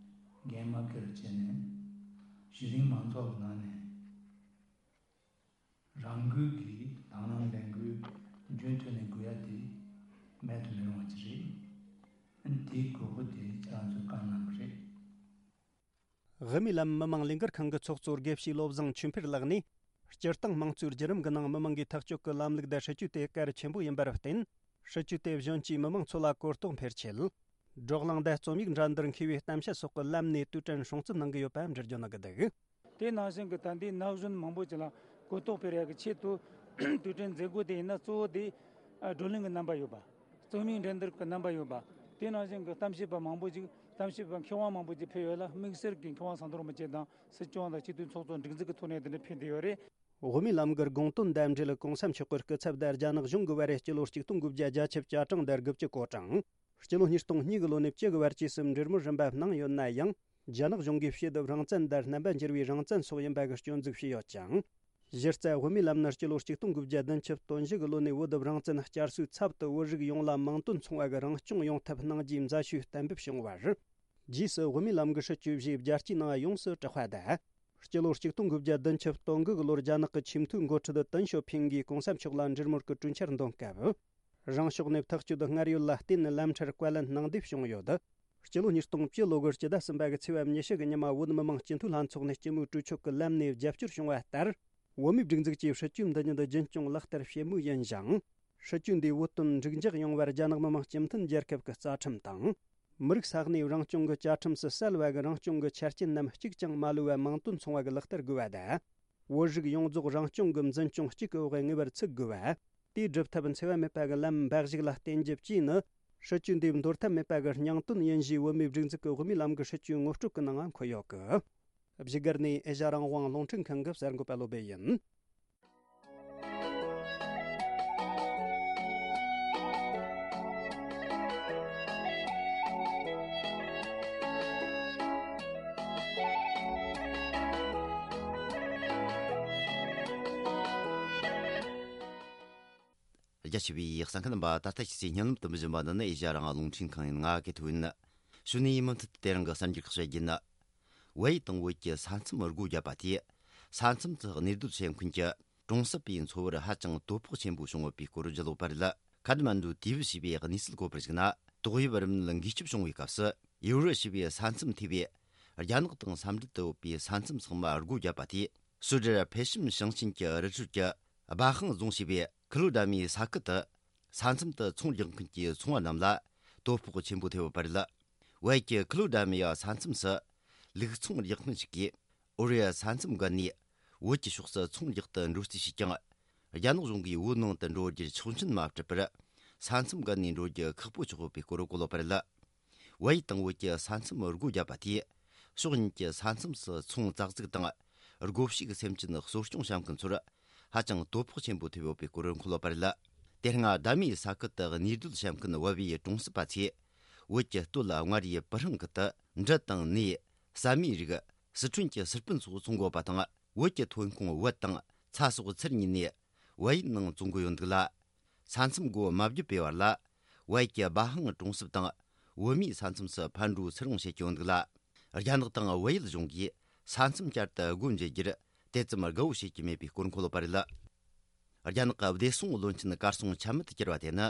འགན་མ་འཁྱེར་བྱས་ནས། གཞི་རིམ་མང་ཚོགས་ཀྱི་ནང་ནས་རང་འགུལ་གྱིས་དང་བླངས་ལས་འགུལ་རྒྱུན་མཐུད་ནས་དགོས་ཡ་དེ་མེད་དུ་མི་རུང་བ་ཅིག་རེད། དེའི་དགོས་མཁོ་དེ་ཁྱེད་རང་ཚོས་བསྐངས་གནང་གི་རེད། དབུ་མའི་ལམ་མི་མང་ལས་འགུལ་ཁང་གི་ཚོགས་གཙོ་དགེ་བཤེས་བློ་བཟང་ཆོས་འཕེལ་ལགས་ནས། སྤྱིར་བཏང་དམངས་གཙོའི་བརྒྱུད་རིམ་གྱི་ནང་མི་མང་གིས་ཐག་གཅོད་ཀྱི་ལམ་ལུགས་དང་སྲིད་ཇུས་དེ་གལ་ཆེན་པོ་ཡིན་པར་བརྟེན། སྲིད་ཇུས་དེ་གཞོན་སྐྱེས་མི་མང་ཚོ་ལ་གོ་རྟོགས་འཕེལ་ཆེད། བགྲོ་གླེང་དང་རྩོམ་ཡིག་འདྲ་འདིར་མཁས་པའི་གཏམ་བཤད་སོགས་ཀྱི་ལམ་ནས་དུས་དྲན་སྲུང་བརྩི་གནང་གི་ཡོད་པ་འགྲེལ་བརྗོད་གནང་གི་འདུག། དེ་ནང་བཞིན་གྱི་ད་ལྟའི་ན་གཞོན་མང་པོ་ཅིག་ལ་གོ་རྟོགས་སྤེལ་ཡག་གི་ཆེད་དུ། དུས་དྲན་མཛད་སྒོ་དེ་ཡིན་ན་གཙོ་བོ་དེ་བགྲོ་གླེང་གི་རྣམ་པ་ཡོད་པ། རྩོམ་ཡིག་འགྲན་བསྡུར་གྱི་རྣམ་པ་ཡོད་པ། དེ་ནང་བཞིན་གྱི་གཏམ་བཤད་པ་མང་པོ་ཅིག་གཏམ་བཤད་པ་མཁས་དབང་མང་པོ་ཅིག་ཕེབས་ཡོད་ལ། དམིགས་བསལ་གྱི་མཁས་དབང་ཟམ་གདོང་རིན་པོ་ཆེ་དང་སྲིད་སྐྱོང་དང་སྤྱི་འཐུས་ཚོགས་གཙོ་འགྲིག་འཛུགས་ཀྱི་ཐོག་ནས་དེ་འདྲ་ཕེབས་བསྡད་ཡོད་རེད། དབུ་མའི་ལམ་གྱི་དགོངས་དོན་དང་འབྲེལ་གོང་ས་མཆོག་གི་སྐུ་ཚབ་དང་རྒྱ་ནག་གཞུང་གི་བར་སྤྱི་ལོ་ཆིག་སྟོང་དགུ་བརྒྱ་བརྒྱད་ཅུ་གྱ་གྲངས་དང་དགུ་བཅུ་གོ་གྲངས། སྤྱི་ལོ་ཉིས་སྟོང་གཉིས་ཀྱི་ལོ་ནས་བཅུ་གི་བར་བཅས་སུ་འབྲེལ་མོལ་རིམ་པ་གནང་ཡོད་ན་ཡང་། རྒྱ་ནག་གཞུང་གིས་ཕྱེད་དུ་རང་བཙན་དང་རྣམ་པ་འགྱུར་བའི་རང་བཙན་སོགས་ཡིན་པ་གི་སྐྱོན་འཛུགས་བྱས་ཡོད་ཅིང་། གཞི་རྩ་དབུ་མའི་ལམ་ནི་སྤྱི་ལོ་ཆིག་སྟོང་དགུ་བརྒྱ་བདུན་ཅུ་དོན་བཞི་གི་ལོ་ནས་བོད་དུ་རང་བཙན་བསྐྱར་གསོའི་ཚབ་ཏུ་བོད་རིགས་ཡོངས་ལ་མིང་དོན་མཚུངས་པ་གི་རང་སྐྱོང་ཡོང་ཐབས་གནང་རྒྱུའི་མཛད་ཞུས་གཏན་འབེབས་བྱུང་བར། རྗེས་སུ་དབུ་མའི་ལམ་གྱི་སྲིད་བྱུས་བཞིའི་རྒྱལ་སྤྱིའི་ནང་ཡོངས་སུ་གྲགས་པ་དང་། སྤྱི་ལོ་ཆིག་སྟོང་དགུ་བརྒྱ་བདུན་ཅུ་དོན་དགུ་གི་ལོར་རྒྱ་ནག་གི་ཆེས་མཐོའི་འགོ་ཁྲིད་ཏེང་ཞའོ་ཕིང་གིས་གོང་ས་མཆོག་ལ་འབྲེལ་མོལ་གྱི་གྲོས་འཆར་འདོན་སྐབས། རང་ཕྱོགས་ནས་ཐག་གཅོད་སྔར་ཡོད་ལ་བརྟེན་ནས་ལམ་ཁྲལ་བཀའ་ལན་གནང་འདེབས་བྱུང་ཡོད། སྤྱི་ལོ་ཉིས་སྟོང་བཅུ་ལོ་གི་སྤྱི་ཟླ་གསུམ་པ་གི་ཚེས་པ་ཉི་ཤུ་གི་ཉི་མ་བོད་མི་མང་སྤྱི་འཐུས་ལྷན་ཚོགས་ནས་སྤྱི་མོས་གྲོས་ཆོད་ཀྱི་ལམ་ནས་རྒྱབ་སྐྱོར་བྱུང་བ་ལྟར། བོད་མིའི་སྒྲིག་འཛུགས་ཀྱིས་སྲིད་ཇུས་འདི་ཉིད་རྒྱུན་སྐྱོང་ལག་བསྟར་བྱེད་མུས་ཡིན་ཞིང་། སྲིད་ཇུས་འདིས་བོད་དོན་འགྲིག་འཇགས་ཡོང་བར་རྒྱ་ནག་མི་དམངས་སྤྱི་མཐུན་རྒྱལ་ཁབ་ཀྱི་རྩ་ཁྲིམས་དང་། མི་རིགས་ས་གནས་རང་སྐྱོང་གི་བཅའ་ཁྲིམས་སུ་གསལ་བ་གི་རང་སྐྱོང་གི་ཆ་རྐྱེན་རྣམས་གཅིག་ཀྱང་མ་ལུས་པ་མིང་དོན་མཚུངས་པ་གི་ལག་བསྟར་དགོས་པ་དང་། བོད་རིགས་ཡོངས་རྫོགས་རང་སྐྱོང་གི་འཛིན་སྐྱོང་གཅིག་གི་འོག་ངེས་པར་ཚུད་དགོས་པ། དེའི་སྒྲུབ་ཐབས་འཚེ་བ་མེད་པ་གི་ལམ་འབའ་ཞིག་ལ་བརྟེན་རྒྱུ་བཅས་ནི། སྲིད་ཇུས་འདིའི་འདོར་ཐབས་མེད་པ་གི་སྙིང་དོན་ཡིན་ཞེས་བོད་མིའི་སྒྲིག་འཛུགས་ཀྱི་དབུ་མའི་ལམ་གྱི་སྲིད་ཇུས་ངོ་སྤྲོད་ཀྱི་ནང་འཁོད་ཡོད་གི། བཞུགས་སྒར་ནས་ཨེ་ཤ་རང་དབང་རླུང་འཕྲིན་ཁང་གི་གསར་འགོད་པ་བློ་བྷེ་ཡིན། རྒྱ་ཆེ་བའི་གསན་མཁན་རྣམ་པ། ད་ལྟ་ཁྱེད་ཚོས་སྙན་ལམ་དུ་འབུལ་བཞིན་པ་འདི་ནི་ཨེ་ཤ་རང་དབང་རླུང་འཕྲིན་ཁང་ཡིན། ང་གི་ཐུ་ཡིན། གཞུག་ནས་མུ་མཐུད་དེ་རིང་གི་གསར་འགྱུར་ཁག་བཤད་རྒྱུ་ཡིན། བལ་ཡུལ་དང་བོད་ཀྱི་ས་མཚམས་སྒོ་བརྒྱབ་པ་དེས། ས་མཚམས་སུ་གནས་སྡོད་བྱེད་མཁན་གྱི་གྲོང་གསེབ་པའི་འཚོ་བར་ཧ་ཅང་དོ་ཕོག་ཆེན་པོ་བྱུང་ཡོད་པའི་སྐོར་ལྗགས་ལོག་པར་རེད། ཁ་ཐ་མན་ཌུ་ཏི་ཝི་ཞེས་པའི་གནས་ཚུལ་གོ་བར་གཞིགས་ན། ཏོག་དབྱིབས་རིམས་ནད་འགོས་ཁྱབ་བྱུང་བའི་སྐབས་སུ། ཡུ་རུ་ཞེས་པའི་ས་མཚམས་ཐེ་བའི་རྒྱ་ནག་དང་ས་འབྲེལ་དུ་ཡོད་པའི་ས་མཚམས་ཚང་མ་སྒོ་བརྒྱབ་པ་དེས། སུད་ཀྲལ་ཕེ་ཤིམ་ཞིང་ཆེན་གྱི་རི་ཁྲོད་ཀྱི་སྦ་ཧང་རྫོང་ཞེས་པའི་ཁི་ལོ་ཌ་མིའི་ས་ཁུལ་དུ། ས་མཚམས་དུ་ཚོང་རྒྱག་མཁན་གྱི་ཚོང་བ་རྣམས་ལ་དོ་ཕོག་ཆེན་པོ་ཐེབས་ཡོད་པ་རེད། བལ་ཡུལ་གྱི་ཁི་ལོ་ཌ་མི་ཡ་ས་མཚམས་སུ་ལུག་ཚོང་རྒྱག་མཁན་ཞིག་གིས་ཨོ་རི་ཡ་ས་མཚམས་བརྒལ་ནས་བོད་ཀྱི་ཕྱོགས་སུ་ཚོང་རྒྱག་ཏུ་འགྲོ་རྩིས་བྱས་ཀྱང་། རྒྱ་ནག་གཞུང་གིས་བོད་ནང་དུ་འགྲོ་རྒྱུར་ཆོག་མཆན་མ་སྤྲད་པར། ས་མཚམས་བརྒལ་ནས་འགྲོ་རྒྱུ་ཁག་པོ་ཆགས་ཡོད་པའི་སྐོར་གོ་ལོག་པ་རེད། བལ་ཡུལ་དང་བོད་ཀྱི་ས་མཚམས་སྒོ་བརྒྱབ་པ་དེས། ཕྱོགས་གཉིས་ཀྱི་ས་མཚམས་སུ་ཚོང་རྩ་འཛུགས་དང་། སྒོ་ཕྱུགས་སེམས་ཅན་གསོ་སྐྱོང་བྱེད་མཁན་ཚོར་ཧ་ཅང་དོ་ཕོག་ཆེན་པོ་ཐེབས་ཡོད་པའི་སྐོར་མཁོ་ལོག་པ་རེད། དེ་སྔ་ཟླ་མིའི་ས་ཁུལ་དུ་གནས་སྡོད་བྱེད་མཁན་བལ་བོའི་གྲོང་གསེབ་པ་ཚོས། བོད་ཀྱི་སྟོད་ལ་མངའ་རིས་སྤུ་ཧྲེང་ཁུལ་དུ་འབྲུ་དང་ནས། ཟ་མའི་རིགས། སི་ཁྲོན་གྱི་སི་པན་སོགས་ཚོང་དགོས་པ་དང་། བོད་ཀྱི་ཐོན་ཁུངས་བལ་དང་ཚྭ་སོགས་ཚུར་ཉོས་ནས་བལ་ཡུལ་ནང་བཙོང་གི་ཡོད་འདུག་ལ། ས་མཚམས་སྒོ་མ་བརྒྱབ་པའི་བར་ལ། བལ་ཡུལ་གྱི་སྦ་ཧང་གྲོང་གསེབ་དང་བོད་མིའི་ས་མཚམས་སུ་ཕར་འགྲོ་ཚུར་འོང་བྱེད་ཀྱི་ཡོད་འདུག་ལ། རྒྱ་ནག་དང་བལ་ཡུལ་གཞུང་གིས་ས་མཚམས་བསྐྱར་དུ་སྒོ་འབྱེད་རྒྱུར་དེ་ཙམ་དགའ་བོ་བྱེད་ཀྱི་མེད་པའི་སྐོར་མཁོ་ལོག་པ་རེད། རྒྱ་ནག་གི་བདེ་སྲུང་བློན་ཆེན་གར་སོང་ཆ་མེད་དུ་གྱུར་བ་དེ་ནི།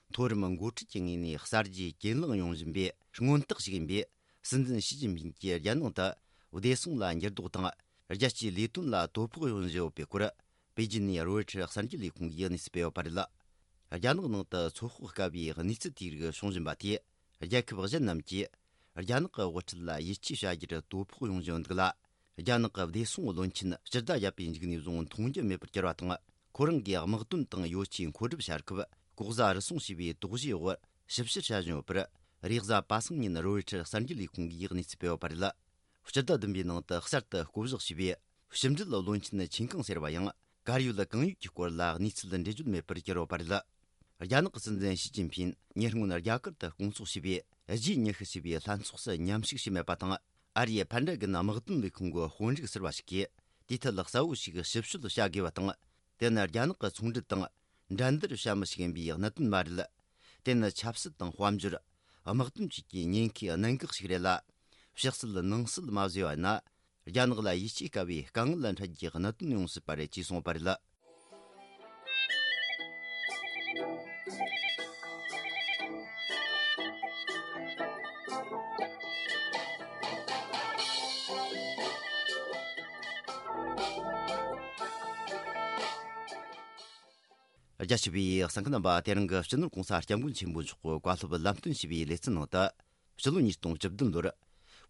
མཐོ་རིམ་འགོ་ཁྲིད་ཀྱི་ངོས་ནས་གསར་བརྗེ་གྱེན་ལངས་ཡོང་བཞིན་པའི་མངོན་རྟགས་ཤིག་ཡིན་པས། སྲིད་འཛིན་ཞི་ཅིན་ཕིང་གིས་རྒྱལ་ནང་དུ་བདེ་སྲུང་ལ་འགྱུར་ལྡོག་དང་། རྒྱལ་སྤྱིའི་ལས་དོན་ལ་དོ་ཕོག་ཡོང་བཞིན་ཡོད་པའི་སྐོར། པེ་ཅིན་ནས་རོའི་ཊར་གསར་འགྱུར་ལས་ཁུངས་ཀྱིས་གནས་ཚུལ་སྤེལ་ཡོད་པ་རེད། རྒྱ་ནག་ནང་དུ་ཚོད་དཔག་དཀའ་བའི་གནས་ཚུལ་དེའི་རིགས་བྱུང་བཞིན་པ་དེས། རྒྱལ་ཁབ་གཞན་རྣམས་ཀྱིས་རྒྱ་ནག་གི་དབུ་ཁྲིད་ལ་ཡིད་ཆེས་བྱ་རྒྱུར་དོ་ཕོག་ཡོང་བཞིན་ཡོད་འདུག་ལ། རྒྱ་ནག་གི་བདེ་སྲུང་བློན་ཆེན་སྤྱི་ཟླ་བརྒྱད་པའི་མཇུག་ནས་བཟུང་མཐོང་རྒྱུ་མེད་པར་གྱུར་བ་དང་། ཁོ་རང་གིས་དམག་དོན་དང་ཡོ་ཆས་མཁོ་སྒྲུབ་བྱ་སྐབས་ལྐོག་ཟ་རུལ་སུངས་བྱས་པའི་དོགས་གཞིའི་འོག་ཞིབ་བཤེར་བྱ་བཞིན་ཡོད་པར། རེས་གཟའ་པ་སངས་ཉིན་རོའི་ཊར་གསར་འགྱུར་ལས་ཁུངས་ཀྱིས་གནས་ཚུལ་སྤེལ་བ་ལྟར། སྤྱི་ཟླ་བདུན་པའི་ནང་དུ་གསར་དུ་བསྐོ་གཞག་བྱས་པའི་ཕྱི་འབྲེལ་བློན་ཆེན་ཆིན་ཀང་ཟེར་བ་ཡང་། གར་ཡོད་གང་ཡོད་ཀྱི་སྐོར་ལ་གནས་ཚུལ་འགྲེལ་བརྗོད་མེད་པར་གྱུར་ཡོད་པ་རེད། རྒྱ་ནག་གི་སྲིད་འཛིན་ཞི་ཅིན་ཕིང་ཉེ་སྔོན་རྒྱ་གར་དུ་སྐོང་ཚོགས་བྱས་པའི་རྗེས་ཉི་ཤུ་ཞེས་པའི་ལྷན་ཚོགས་སུ་མཉམ་ཞུགས་བྱས་མེད་པ་དང་། ཨ་རིའི་ཕན་ཌ་གན་དམག་དོན་ལས་ཁུངས་ཀྱི་དཔོན་རིགས་ཟུར་པ་ཞིག་གིས་དེའི་ཐད་གསལ་བོ་ཞིག་ཞིབ་དཔྱོད་བྱ་དགོས་པ་དང་། དེ་ནི་རྒྱ་ནག་གི་ཚོང་འབྲེལ་དང་འགྲན་བསྡུར་བྱ་མི་ཞིག་ཡིན་པའི་གནད་དོན་མ་རེད། དེ་ནི་ཆབ་སྲིད་དང་དཔལ་འབྱོར། དམག་དོན་བཅས་ཀྱི་ཉེན་ཁའི་གནད་འགག་ཞིག་རེད་ལ། ཕྱི་སྲིད་ནང་སྲིད་མ་བཟོས་པ་ན། རྒྱ་ནག་ལ་ཡིད་ཆེས་དཀའ་བའི་དཀའ་ངལ་འཕྲད་རྒྱུའི་གནད་དོན་ཡོང་སྲིད་པ་རེད་ཅེས་གསུངས་པ་རེད། རྒྱ་ཆེ་བའི་གསན་མཁན་རྣམ་པ། དེ་རིང་གི་སྤྱི་ནོར་༸གོང་ས་༸སྐྱབས་མགོན་ཆེན་པོ་མཆོག་གི་བཀའ་སློབ་ལམ་སྟོན་ཞུས་པའི་ལེ་ཚན་ནང་དུ། སྤྱི་ལོ་ཉིས་སྟོང་བཅུ་བདུན་ལོར་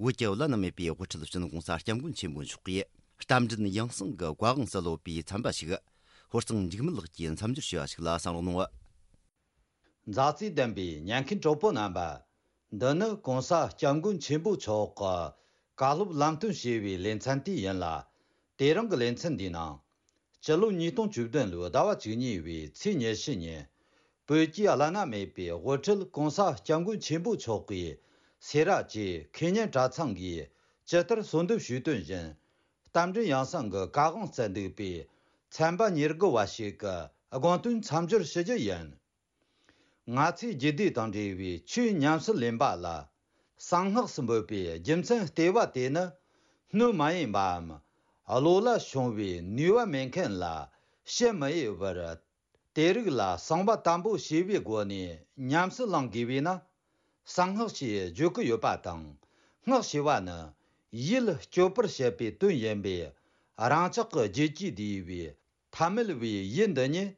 བོད་ཀྱི་བླ་ན་མེད་པའི་དབུ་ཁྲིད་སྤྱི་ནོར་༸གོང་ས་༸སྐྱབས་མགོན་ཆེན་པོ་མཆོག་གིས་རྟ་མགྲིན་ཡང་གསང་གི་བཀའ་དབང་སུ་ལོག་པའི་ཚན་པ་ཞིག་ཧོར་གཙང་འཇིགས་མེད་ལགས་ཀྱིས་མཚམས་སྦྱོར་ཞུས་པ་ཞིག་ལ་གསན་རོགས་གནང་། མཛའ་བརྩེ་ལྡན་པའི་ཉན་མཁན་གྲོགས་པོ་རྣམ་པ། འདི་ནི་༸གོང་ས་༸སྐྱབས་མགོན་ཆེན་པོ་མཆོག་གི་བཀའ་སློབ་ལམ་སྟོན་ཞེས་པའི་ལེ་ཚན་དེ་ཡིན་ལ། དེ་རིང་གི་ལེ་ཚན་འདིའི་ནང་། སྤྱི་ལོ་ཉིས་སྟོང་བཅུ་བདུན་ལོའི་ཟླ་བ་བཅུ་གཉིས་པའི་ཚེས་ཉི་ཤུ་ཉིན། བོད་ཀྱི་བླ་ན་མེད་པའི་དབུ་ཁྲིད་༸གོང་ས་༸སྐྱབས་མགོན་ཆེན་པོ་མཆོག་གིས་སེ་ར་བྱེས་ཁེ་ཉན་གྲྭ་ཚང་གིས་ཇི་ལྟར་གསོལ་འདེབས་ཞུས་དོན་བཞིན། རྟ་མགྲིན་ཡང་གསང་གི་བཀའ་དབང་སྩལ་འདུག་པའི་ཚན་པ་ཉེར་དགུ་བ་ཞིག་གི་དགོངས་དོན་མཚམས་སྦྱོར་ཞུ་རྒྱུ་ཡིན། ང་ཚོའི་རྒྱུད་སྡེ་དང་འབྲེལ་བའི་ཆོས་ཉམས་སུ་ལེན་པ་ལ་གསང་སྔགས་སུ་འབོད་པའི་རྒྱུ་མཚན་ལྟེ་བ་དེ་ནི། སྣོད་མ་ཡིན་པའམ་བློ་ལ་ཤོང་བའི་ནུས་པ་མེད་མཁན་ལ་བཤད་མི་འོས་པར། དེ་རིགས་ལ་གསང་བ་དམ་པོ་བྱས་པའི་སྒོ་ནས་ཉམས་སུ་བླང་དགོས་པས་ན། གསང་སྔགས་ཞེས་བརྗོད་ཀྱི་ཡོད་པ་དང་། སྔགས་ཞེས་པ་ནི་ཡིད་སྐྱོབ་པར་བྱེད་པའི་དོན་ཡིན་པས། རང་ཅག་གི་རྒྱུད་ཀྱི་སྡེ་བའི་ཐ་མལ་བའི་ཡུལ་འདི་ཉིད་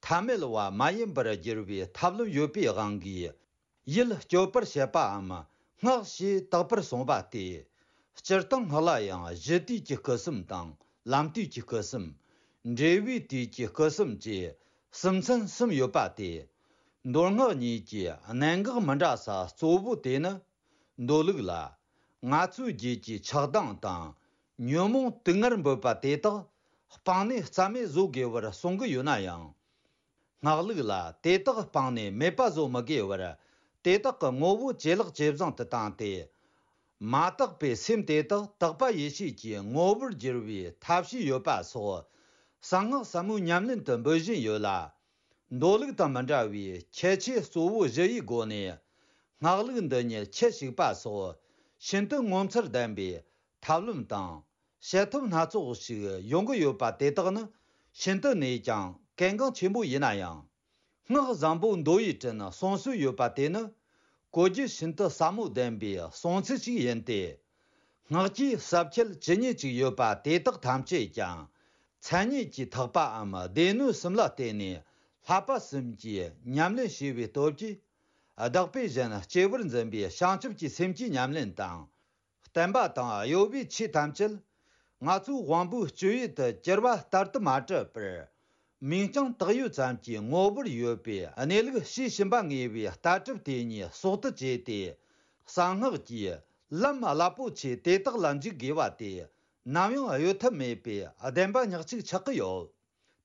ཐ་མལ་བ་མ་ཡིན་པར་བསྒྱུར་བའི་ཐབས་ལམ་ཡོད་པའི་དབང་གིས། ཡིད་སྐྱོབ་པར་བྱེད་པའམ་སྔགས་ཞེས་བཏགས་པར་གསུངས་པ་སྟེ། སྤྱིར་བཏང་སྔགས་ལ་ཡང་གཞི་དུས་ཀྱི་སྐུ་གསུམ་དང་ལམ་དུས་ཀྱི་སྐུ་གསུམ། འབྲས་བུའི་དུས་ཀྱི་སྐུ་གསུམ་བཅས་གསུམ་ཚན་གསུམ་ཡོད་པ་སྟེ། མདོ་སྔགས་གཉིས་ཀྱི་གནད་འགག་མི་འདྲ་ས་གཙོ་བོ་དེ་ནི། མདོ་ལུགས་ལ། ང་ཚོའི་རྒྱུད་ཀྱི་ཆགས་སྡང་དང་ཉོན་མོངས་དུག་ལྔར་འབོད་པ་དེ་དག་སྤངས་ནས་རྩ་མེད་བཟོ་དགོས་པར་གསུང་གི་ཡོད་ན་ཡང་། སྔགས་ལུགས་ལ་དེ་དག་སྤངས་ནས་མེད་པ་བཟོ་མི་དགོས་པར། དེ་དག་གི་ངོ་བོ་ཇེ་ལེགས་ཇེ་བཟང་དུ་བཏང་སྟེ། མ་དག་པའི་སེམས་དེ་དག་དག་པ་ཡེ་ཤེས་ཀྱི་ངོ་བོར་བསྒྱུར་བའི་ཐབས་ཤེས་ཡོད་པ་སོགས། གསང་སྔགས་ཟབ་མོའི་ཉམས་ལེན་དུ་འབོད་བཞིན་ཡོད་ལ། མདོ་ལུགས་དང་མི་འདྲ་བའི་ཁྱད་ཆོས་གཙོ་བོ་བཞི་ཡི་སྒོ་ནས། སྔགས་ལུགས་འདི་ཉིད་ཁྱད་ཞུགས་པ་སོགས་ཤིན་ཏུ་ངོ་མཚར་ལྡན་པའི་ཐབས་ལམ་དང་། བྱེད་ཐབས་སྣ་ཚོགས་ཤིག་ཡོང་གི་ཡོད་པ་དེ་དག་ནི་ཤིན་ཏུ་ནས་ཀྱང་གལ་འགངས་ཆེན་པོ་ཡིན་ན་ཡང་། སྔགས་བཟང་པོ་མདོ་ཡི་དྲིན་གསུང་སྲོལ་ཡོད་པ་དེ་ནི་གོ་རྒྱུ་ཤིན་ཏུ་ཟབ་མོ་ལྡན་པའི་གསུང་ཚུལ་ཞིག་ཡིན་ཏེ། སྔགས་ཀྱི་ཟབ་ཁྱད་ཇི་སྙེད་ཅིག་ཡོད་པ་དེ་དག་ཐམས་ཅད་ཀྱང་མཚན་ཉིད་ཀྱིས་ཐེག་པའམ་སྡེ་སྣོད་གསུམ་ལ་བརྟེན་ནས་བསླབ་པ་གསུམ་གྱིས་ཉམས་ལེན་བྱས་པའི་སྟོབས་ཀྱིས། བདག་པོས་གཞན་གཅེས་པར་འཛིན་པའི་བྱང་ཆུབ་ཀྱི་སེམས་ཀྱི་ཉམས་ལེན་དང་། བསྟན་པ་དང་གཡོ་བའི་ཆོས་ཐམས་ཅད་ང་ཚོའི་དབང་པོའི་སྤྱོད་ཡུལ་དུ་གྱུར་པ་ལྟར་དུ་མ་གྲུབ་པར། མིང་རྐྱང་བཏགས་ཡུལ་ཙམ་གྱི་ངོ་བོར་ཡོད་པའི་གནས་ལུགས་ཤེས་བཞིན་པ་ངེས་པའི་ལྟ་གྲུབ་དེ་ཉིད་གསོག་ཏུ་བྱས་ཏེ། གསང་སྔགས་ཀྱི་ལམ་རླབས་པོ་ཆེ་དེ་དག་ལ་འཇུག་དགོས་པ་དེ་ནམ་ཡང་གཡོལ་ཐབས་མེད་པའི་བདེན་པ་ཉག་གཅིག་ཆགས་ཀྱི་ཡོད།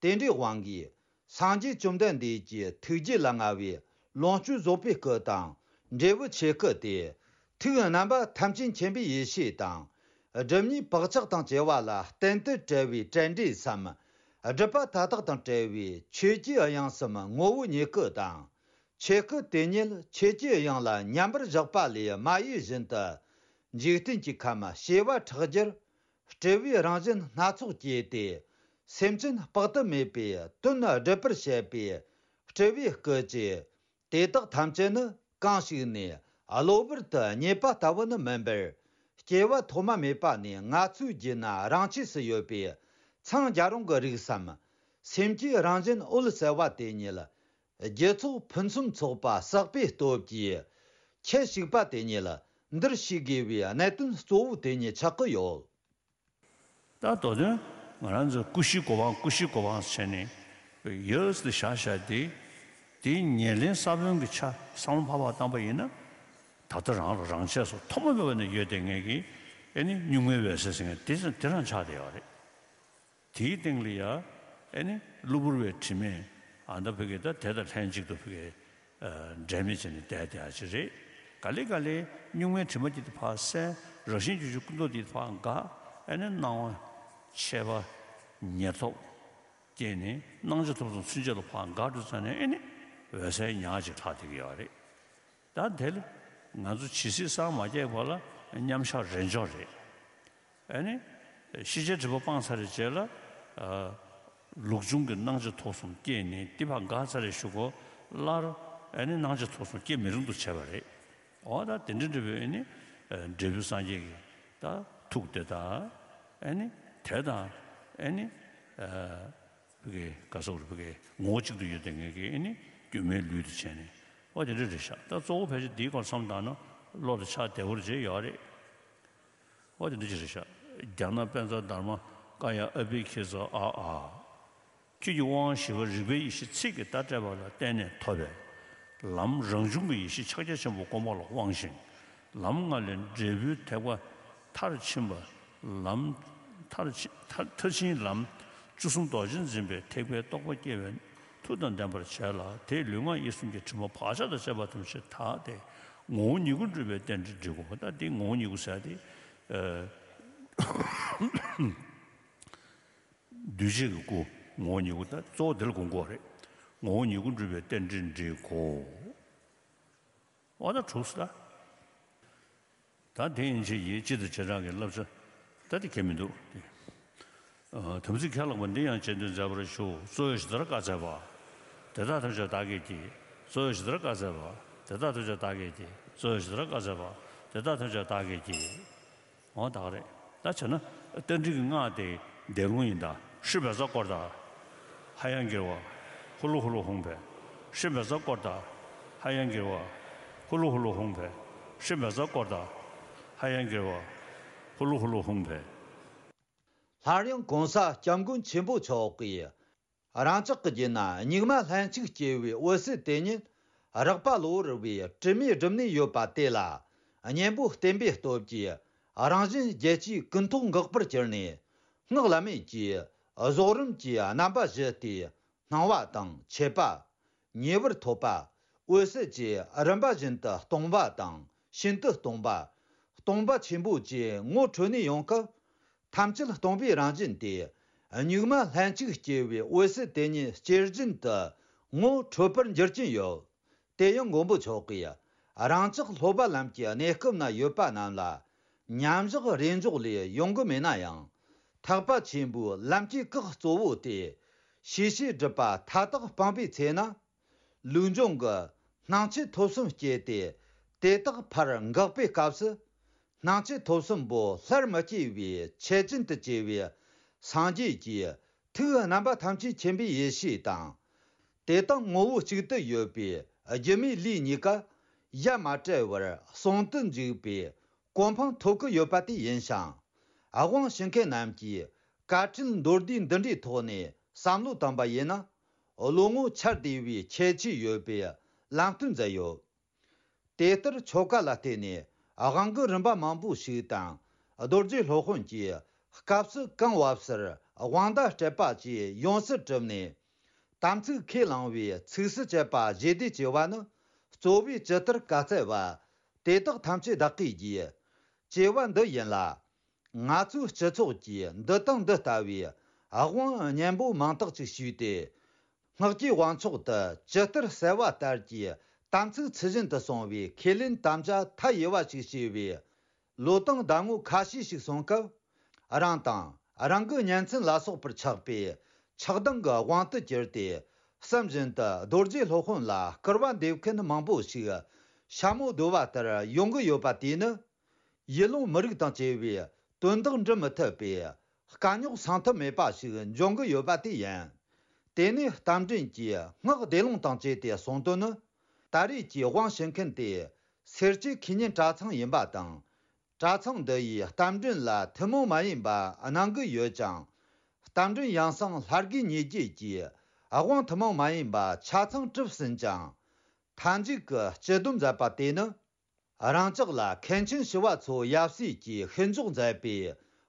དེ་འདྲའི་དབང་གིས་སངས་རྒྱས་བཅོམ་ལྡན་འདས་ཀྱི་ཐུགས་རྗེ་ལ་མངའ་བའི་ལོངས་སྤྱོད་རྫོགས་པའི་སྐུ་དང་འབྲས་བུ་ཆོས་སྐུ་སྟེ། ཐུགས་རྣམ་པ་ཐམས་ཅད་མཁྱེན་པའི་ཡེ་ཤེས་དང་། སྒྲིབ་གཉིས་བག་ཆགས་དང་བཅས་པ་ལ་གཏན་དུ་བྲལ་བའི་བྲལ་འབྲས་སམ། སྒྲིབ་པ་མཐའ་དག་དང་བྲལ་བའི་ཆོས་ཀྱི་དབྱིངས་སམ་ངོ་བོ་ཉིད་སྐུ་དང་། ཆོས་སྐུ་དེ་ཉིད་ཆོས་ཀྱི་དབྱིངས་ལ་མཉམ་པར་བཞག་པ་ལས་མ་གཡོས་བཞིན་དུ། འཇིག་རྟེན་གྱི་ཁམས་བྱེ་བ་ཕྲག་བརྒྱར་སྤྲུལ་པའི་རང་བཞིན་སྣ་ཚོགས་སྐྱེས་ཏེ། སེམས་ཅན་དཔག་ཏུ་མེད་པའི་དོན་སྒྲུབ་པར་བྱེད་པའི་སྤྲུལ་པའི་སྐུ་ཅིག་དེ་དག་ཐམས་ཅད་ནི་གང་ཞིག་ནས་གློ་བུར་དུ་རྙེད་པ་ལྟ་བུ་ནི་མིན་པར། སྐྱེ་བ་ཐོག་མ་མེད་པ་ནས་ང་ཚོའི་རྒྱུད་ན་རང་ཆས་སུ་ཡོད་པའི་འཚང་རྒྱ་རུང་གི་རིགས་སམ། སེམས་ཀྱི་རང་བཞིན་འོད་གསལ་བ་དེ་ཉིད། རྒྱུ་ཚོགས་ཕུན་སུམ་ཚོགས་པ་བསགས་པའི་སྟོབས་ཀྱིས། ཁྱད་ཞུགས་པ་དེ་ཉིད་འདིར་ཤེས་དགོས་པའི་གནད་དོན་གཙོ་བོ་དེ་ཉིད་ཆགས་ཀྱི་ཡོད། ད་དོ་དོན་ང་རང་ཚོ་ཀུ་ཤུའི་གོ་འཕང་ཀུ་ཤུའི་གོ་འཕང་བྱས་ནས་ ཡོད་དེ་བཞག་བཞག་དེ། དེའི་ཉེར་ལེན་ས་བོན་གྱི་ཆ་བསམ་བློ་ཕར་ཕར་བཏང་པ་ཡིན་ན། ད་ལྟ་རང་ལ་རང་ཆས་སུ་ཐོག་མ་མེད་པ་ནས་ཡོད་བསྡད་མཁན་གྱི་ཨེ་ནི་གཉུག་མའི་འོད་གསལ་ཟེར་མཁན་དེ་དེ་རང་ཆགས་བསྡད་ཡོད་རེད། དེའི་སྟེང་ལ་ཡ་ཨེ་ནི་གློ་བུར་བའི་དྲི་མས་ཨ་མདའ་ཕ་གི་ད་དེ་དང་ལྷན་ཅིག་ཏུ་ཕ་གི་འབྲལ་མེད་བྱས་ནས་བསྡད་བསྡད་ཡ་ཅིག་རེད། ག་ལེ་ག་ལེ་གཉུག་མའི་དྲི་མ་དེ་ཕར་སེལ། རང་བཞིན་བརྗོད་བྱའི་ཀུན་རྟོག་དེ་ཕར་འགག་ཨེ་ནི་སྣང་བ་མཆེད་པ་ཉེར་ཐོབ་སྐྱེས་ནས་སྣང་ཆ་ཐོབ་གསུམ་ཚུན་ཆད་ལ་ཕར་འགག་འགྲོ་ཙང་ནས་ཨེ་ནི་འོད་གསལ་ཉག་གཅིག་ལྷག་བསྡད་ཀྱི་ཡོད་རེད། ད་དེ་ལ་ང་ཚོ་ཇི་སྲིད་སངས་མ་རྒྱས་བར་ལ་མཉམ་བཞག་རེས་འཇོག་རེད། ཨ་ནི་ཤེས་བྱའི་སྒྲིབ་པ་སྤངས་ཚར་བའི་རྗེས་ལ་ཨ་ལུགས་འབྱུང་གི་སྣང་ཆ་ཐོབ་གསུམ་སྐྱེས་ནས་དེ་ཕར་འགག་ཚར་བའི་གཞུག་གུ་སླར་ཨ་ནི་སྣང་ཆ་ཐོབ་གསུམ་སྐྱེ་མི་རུང་དུ་བྱས་པ་རེད། འོ་ད་དེ་འདྲ་འདྲ་བའི་ཨ་ནི་འབྲས་བུ་སངས་རྒྱས་ཀྱི་ད་ཐུགས་དེ་དང་ཨ་ནི་དེ་དང་ཨ་ནི་ཨ་བི་གའི་ག་སོགས་རུ་བི་གའི་ངོ་བོ་གཅིག་ཏུ་ཡོད་དེ་ངེད་ཀྱི་ཨ་ནི་སྒྱུ་མའི་ལུས་དུ་བྱས་ནས། འོ་དེ་འདྲ་རེད་ཤག་ད་གཙོ་བོ་ཕལ་ཆེར་འདིའི་སྐོར་བསམ་བཏང་ན་བློ་དེ་ཆགས་བདེ་བོར་བྱས་ཡོད་རེད། འོ་དེ་འདྲ་ཅིག་རེད་ཤག་རྒྱ་ནག་པཎ་ཚང་དྷརྨ་ཀ་ཡ་ཨ་བྷི་ཁི་ཙ་ཨ་ཨ། ཆོས་ཀྱི་དབང་བཞི་པ་རིག་པའི་ཡེ་ཤེས་ཚིག་གིས་བརྡ་སྤྲད་པ་ལ་བརྟེན་ནས་ཐོབ་པའི་ལམ། རང་བྱུང་གི་ཡེ་ཤེས་ཕྱག་རྒྱ་ཆེན་པོ་བསྒོམ་པ་ལ་དབང་ཞིང་། ལམ་ལྔ་ལས་འབྲས་བུའི་ཐེག་པ་མཐར་ཕྱིན་པ། ལམ་མཐར་ཕྱིན་མཐར་མཐར་ཕྱིན་ལམ། བཅུ་གསུམ་རྡོ་རྗེ་འཛིན་པའི་ཐེག་པའི་རྟོགས་པ་སྐྱེ་བའི་མཐུ་དང་ལྡན་པར་བྱས་ལ། དེས་ལུས་ངག་ཡིད་གསུམ་གྱི་དྲི་མ་བག་ཆགས་དང་བཅས་པ་ཐམས་ཅད་དག་སྟེ་ངོ་བོ་ཉིད་སྐུར་གྲུབ་པའི་རྟེན་འབྲེལ་འགྲིག་གོ། ད་འདི་ངོ་བོ་ཉིད་སྐུ་ཟེར་ཏེ། ཨ། འདུས་བྱས་ཀྱི་སྐུ། ངོ་བོ་ཉིད་སྐུ། ད་གཙོ་བོ་འདི་ལ་དགོངས་དགོས་རེད། ངོ་བོ་ཉིད་སྐུར་གྲུབ་པའི་རྟེན་འབྲེལ་འགྲིག་གོ། འོ་ད་གྲུབ་སོང་ད། ད་དེ་ཡན་ཆད་ཀྱི་སྤྱི་དང་བྱེ་བྲག་གི་བསླབ་བྱ་ད་དེ་གལ་མི་འདུག་སྟེ། ཨ། དམ་ཚིག་ཁས་བླངས་པ་འདི་ཡང་རྗེས་ཟློས་མཛད་པར་ཞུ། གཙོ་བོ་ཇི་ལྟར་བཀའ་སྩལ་པ། དེ་དག་ཐམས་ཅད་བདག་གིས་བགྱི། གཙོ་བོ་ཇི་ལྟར་བཀའ་སྩལ་པ། དེ་དག་ཐམས་ཅད་བདག་གིས་བགྱི། གཙོ་བོ་ཇི་ལྟར་བཀའ་སྩལ་པ། དེ་དག་ཐམས་ཅད་བདག་གིས་བགྱི། འོ་ད་ག་རེད། ད་བྱས་ན་རྟ་མགྲིན་གྱི་སྔགས་དེ་བཟླས་ལུང་ཡིན་ད། ཧྲཱིཿབཛྲ་ཀྲོ་དྷ། ཧ་ཡང་གིརྦྷ། ཧུ་ལུ་ཧུ་ལུ་ཧཱུྃ་ཕཊ། ཧྲཱིཿབཛྲ་ཀྲོ་དྷ། ཧ་ཡང་གིརྦྷ། ཧུ་ལུ་ཧུ་ལུ་ཧཱུྃ་ཕཊ། ཧྲཱིཿབཛྲ་ཀྲོ་དྷ། ཧ་ཡང་གིརྦྷ། ཧུ་ལུ་ཧུ་ལུ་ཧཱུྃ་ཕཊ། སླར་ཡང་གོང་ས་སྐྱབས་མགོན་ཆེན་པོ་མཆོག་གིས། རང་ཅག་གི་རྒྱུད་ན་གཉུག་མ་ལྷན་ཅིག་སྐྱེས་པའི་འོད་གསལ་དེ་ཉིད་རགས་པ་གློ་བུར་བའི་དྲི་མས་བསྒྲིབས་ནས་ཡོད་པ་དེ་ལ། གཉེན་པོ་བསྟེན་པའི་སྟོབས་ཀྱིས་རང་གཞན་བརྒྱད་ཅུའི་ཀུན་རྟོག་འགག་པར་གྱུར་ནས། སྔགས་བླ་མེད་ཀྱི་རྫོགས་རིམ་གྱི་རྣམ་པ་བཞི་སྟེ། སྣང་བ་དང་མཆེད་པ། ཉེ་བར་ཐོབ་པ། འོད་གསལ་བཅས་རིམ་པ་བཞིན་དུ་སྟོང་པ་དང་ཤིན་ཏུ་སྟོང་པ། སྟོང་པ་ཆེན་པོ་བཅས་ངོ་འཕྲོད་ནས་ཡོང་སྐབས། ཐམས་ཅད་སྟོང་པའི་རང་བཞིན་ཏེ། གཉུག་མ་ལྷན་ཅིག་སྐྱེས་པའི་འོད་གསལ་དེ་ཉིད་སྐྱེ་བཞིན་དུ་ངོ་འཕྲོད་པར་འགྱུར་གྱིན་ཡོད། དེ་ཡང་མགོན་པོ་མཆོག་གིས་རང་ཅག་སློབ་པ་ལམ་གྱི་གནས་སྐབས་ན་ཡོད་པ་རྣམས་ལ་མཉམ་བཞག་རེས་འཇོག་ལས་ཡོང་གི་མེད་ན་ཡང་། ཐེག་པ་ཆེན་པོའི་ལམ་གྱི་སྐགས་གཙོ་བོ་སྟེ། ཤེས་བྱའི་སྒྲིབ་པ་མཐའ་དག་སྤངས་པའི་ཚེ་ན། ལུགས་འབྱུང་གི་སྣང་མཆེད་ཐོབ་གསུམ་སྐྱེས་ཏེ། དེ་དག་ཕར་འགག་པའི་སྐབས་སུ། སྣང་མཆེད་ཐོབ་གསུམ་པོ་སླར་མི་སྐྱེ་བའི་ཆེད་ཅན་དུ་གྱུར་པའི་སངས་རྒྱས་ཀྱི་ཐུགས་རྣམ་པ་ཐམས་ཅད་མཁྱེན་པའི་ཡེ་ཤེས་དང་། དེ་དང་ངོ་བོ་གཅིག་ཏུ་ཡོད་པའི་སྒྱུ་མའི་ལུས་གཉིས་ཀ་ཡ་མ་བྲལ་བར་ཟུང་དུ་འཇུག་པའི་གོ་འཕང་ཐོབ་ཀྱི་ཡོད་པ་དེ་ཡིན་ཞིང་། དབང་ཞུ་མཁན་རྣམས་ཀྱིས་དཀའ་ཁྲིད་མདོར་བསྡུས་འདི་འདྲའི་ཐོག་ནས་བསམ་བློ་བཏང་པ་ཡིན་ན། བློ་ངོར་འཆར་བདེ་བའི་ཁྱད་ཆོས་ཡོད་པའི་ལམ་སྟོན་མཛད་ཡོད། དེ་ལྟར་ཆོ་ག་ལ་བརྟེན་ནས་དབང་གི་རིམ་པ་མང་པོ་ཞིག་དང་། རྡོ་རྗེ་སློབ་དཔོན་གྱིས་སྐབས་སུ་གང་བབས་སར་དབང་བརྡ་སྤྲད་པ་བཅས་ཡོངས་སུ་གྲུབ་ནས། དམ་ཚིག་ཁས་བླངས་པའི་ཚིགས་སུ་བཅད་པ་བཞི་སྡེ་ཅེས་པ་ནི། གཙོ་བོས་ཇི་ལྟར་བཀའ་སྩལ་པ། དེ་དག་ཐམས་ཅད་བདག་གིས་བགྱི། ཅེས་པ་འདི་ཡིན་ལ། ང་ཚོའི་སྤྱི་ཚོགས་ཀྱིས་འདི་དང་འདི་ལྟ་བུའི་དབང་སྙན་པོ་མང་དག་ཅིག་ཞུས་ཏེ། སྔགས་ཀྱི་དབང་ཕྱོགས་དུ་ཇི་ལྟར་གསལ་བ་ལྟར་གྱི་དམ་ཚིག་ཚུལ་བཞིན་དུ་སྲུང་བའི་ཁས་ལེན་དམ་བཅའ་མཐའ་ཡས་པ་ཞིག་བྱས་པའི་ལོ་དང་ཟླ་ངོ་ཁ་ཤས་ཤིག་སོང་སྐབས། རང་དང་རང་གི་གཉེན་ཚན་ལ་སོགས་པར་ཆགས་པའི་ཆགས་སྡང་གི་དབང་དུ་གྱུར་ཏེ། བསམ་བཞིན་དུ་རྡོ་རྗེ་སློབ་དཔོན་ལ་སྐུར་བ་འདེབས་མཁན་མང་པོ་ཞིག་ཤ་མོ་བརྡོལ་བ་ལྟར་ཡོང་གི་ཡོད་པ་དེས་ནི། ཡུལ་ལུང་མི་རིགས་དང་བཅས་པའི་དོན་དག་འགྲུབ་མི་ཐུབ་པའི་དཀའ་རྙོག་སངས་ཐབས་མེད་པ་ཞིག་འབྱུང་གི་ཡོད་པ་དེ་ཡིན། དེ་ནས་རྟ་མགྲིན་གྱིས་སྔགས་བཟླས་ལུང་དང་བཅས་ཏེ་གསུངས་དོན་ནི། ད་རེས་ཀྱི་དབང་ཞུ་མཁན་དེ་སེར་སྐྱའི་ཁེ་ཉེན་གྲྭ་ཚང་ཡིན་པ་དང་། གྲྭ་ཚང་འདི་ཡིས་རྟ་མགྲིན་ལ་ཐུན་མོང་མ་ཡིན་པ་གནང་གི་ཡོད་ཅིང་། རྟ་མགྲིན་ཡང་གསང་ལྷ་དགེ་གཉེར་རྒྱུད་ཀྱིས་ དབང་ཐུན་མོང་མ་ཡིན་པ་ཆ་ཚང་གྲུབ་ཟིན་ཅིང་། མཐའ་མཇུག་གི་སྤྱི་སྡོམ་མཛད་པ་དེ་ནི། རང་ཅག་ལ་མཁན་ཆེན་ཞི་བ་འཚོ་ཡབ་སྲས་ཀྱིས་ཤིན་འཇོག་མཛད་པའི་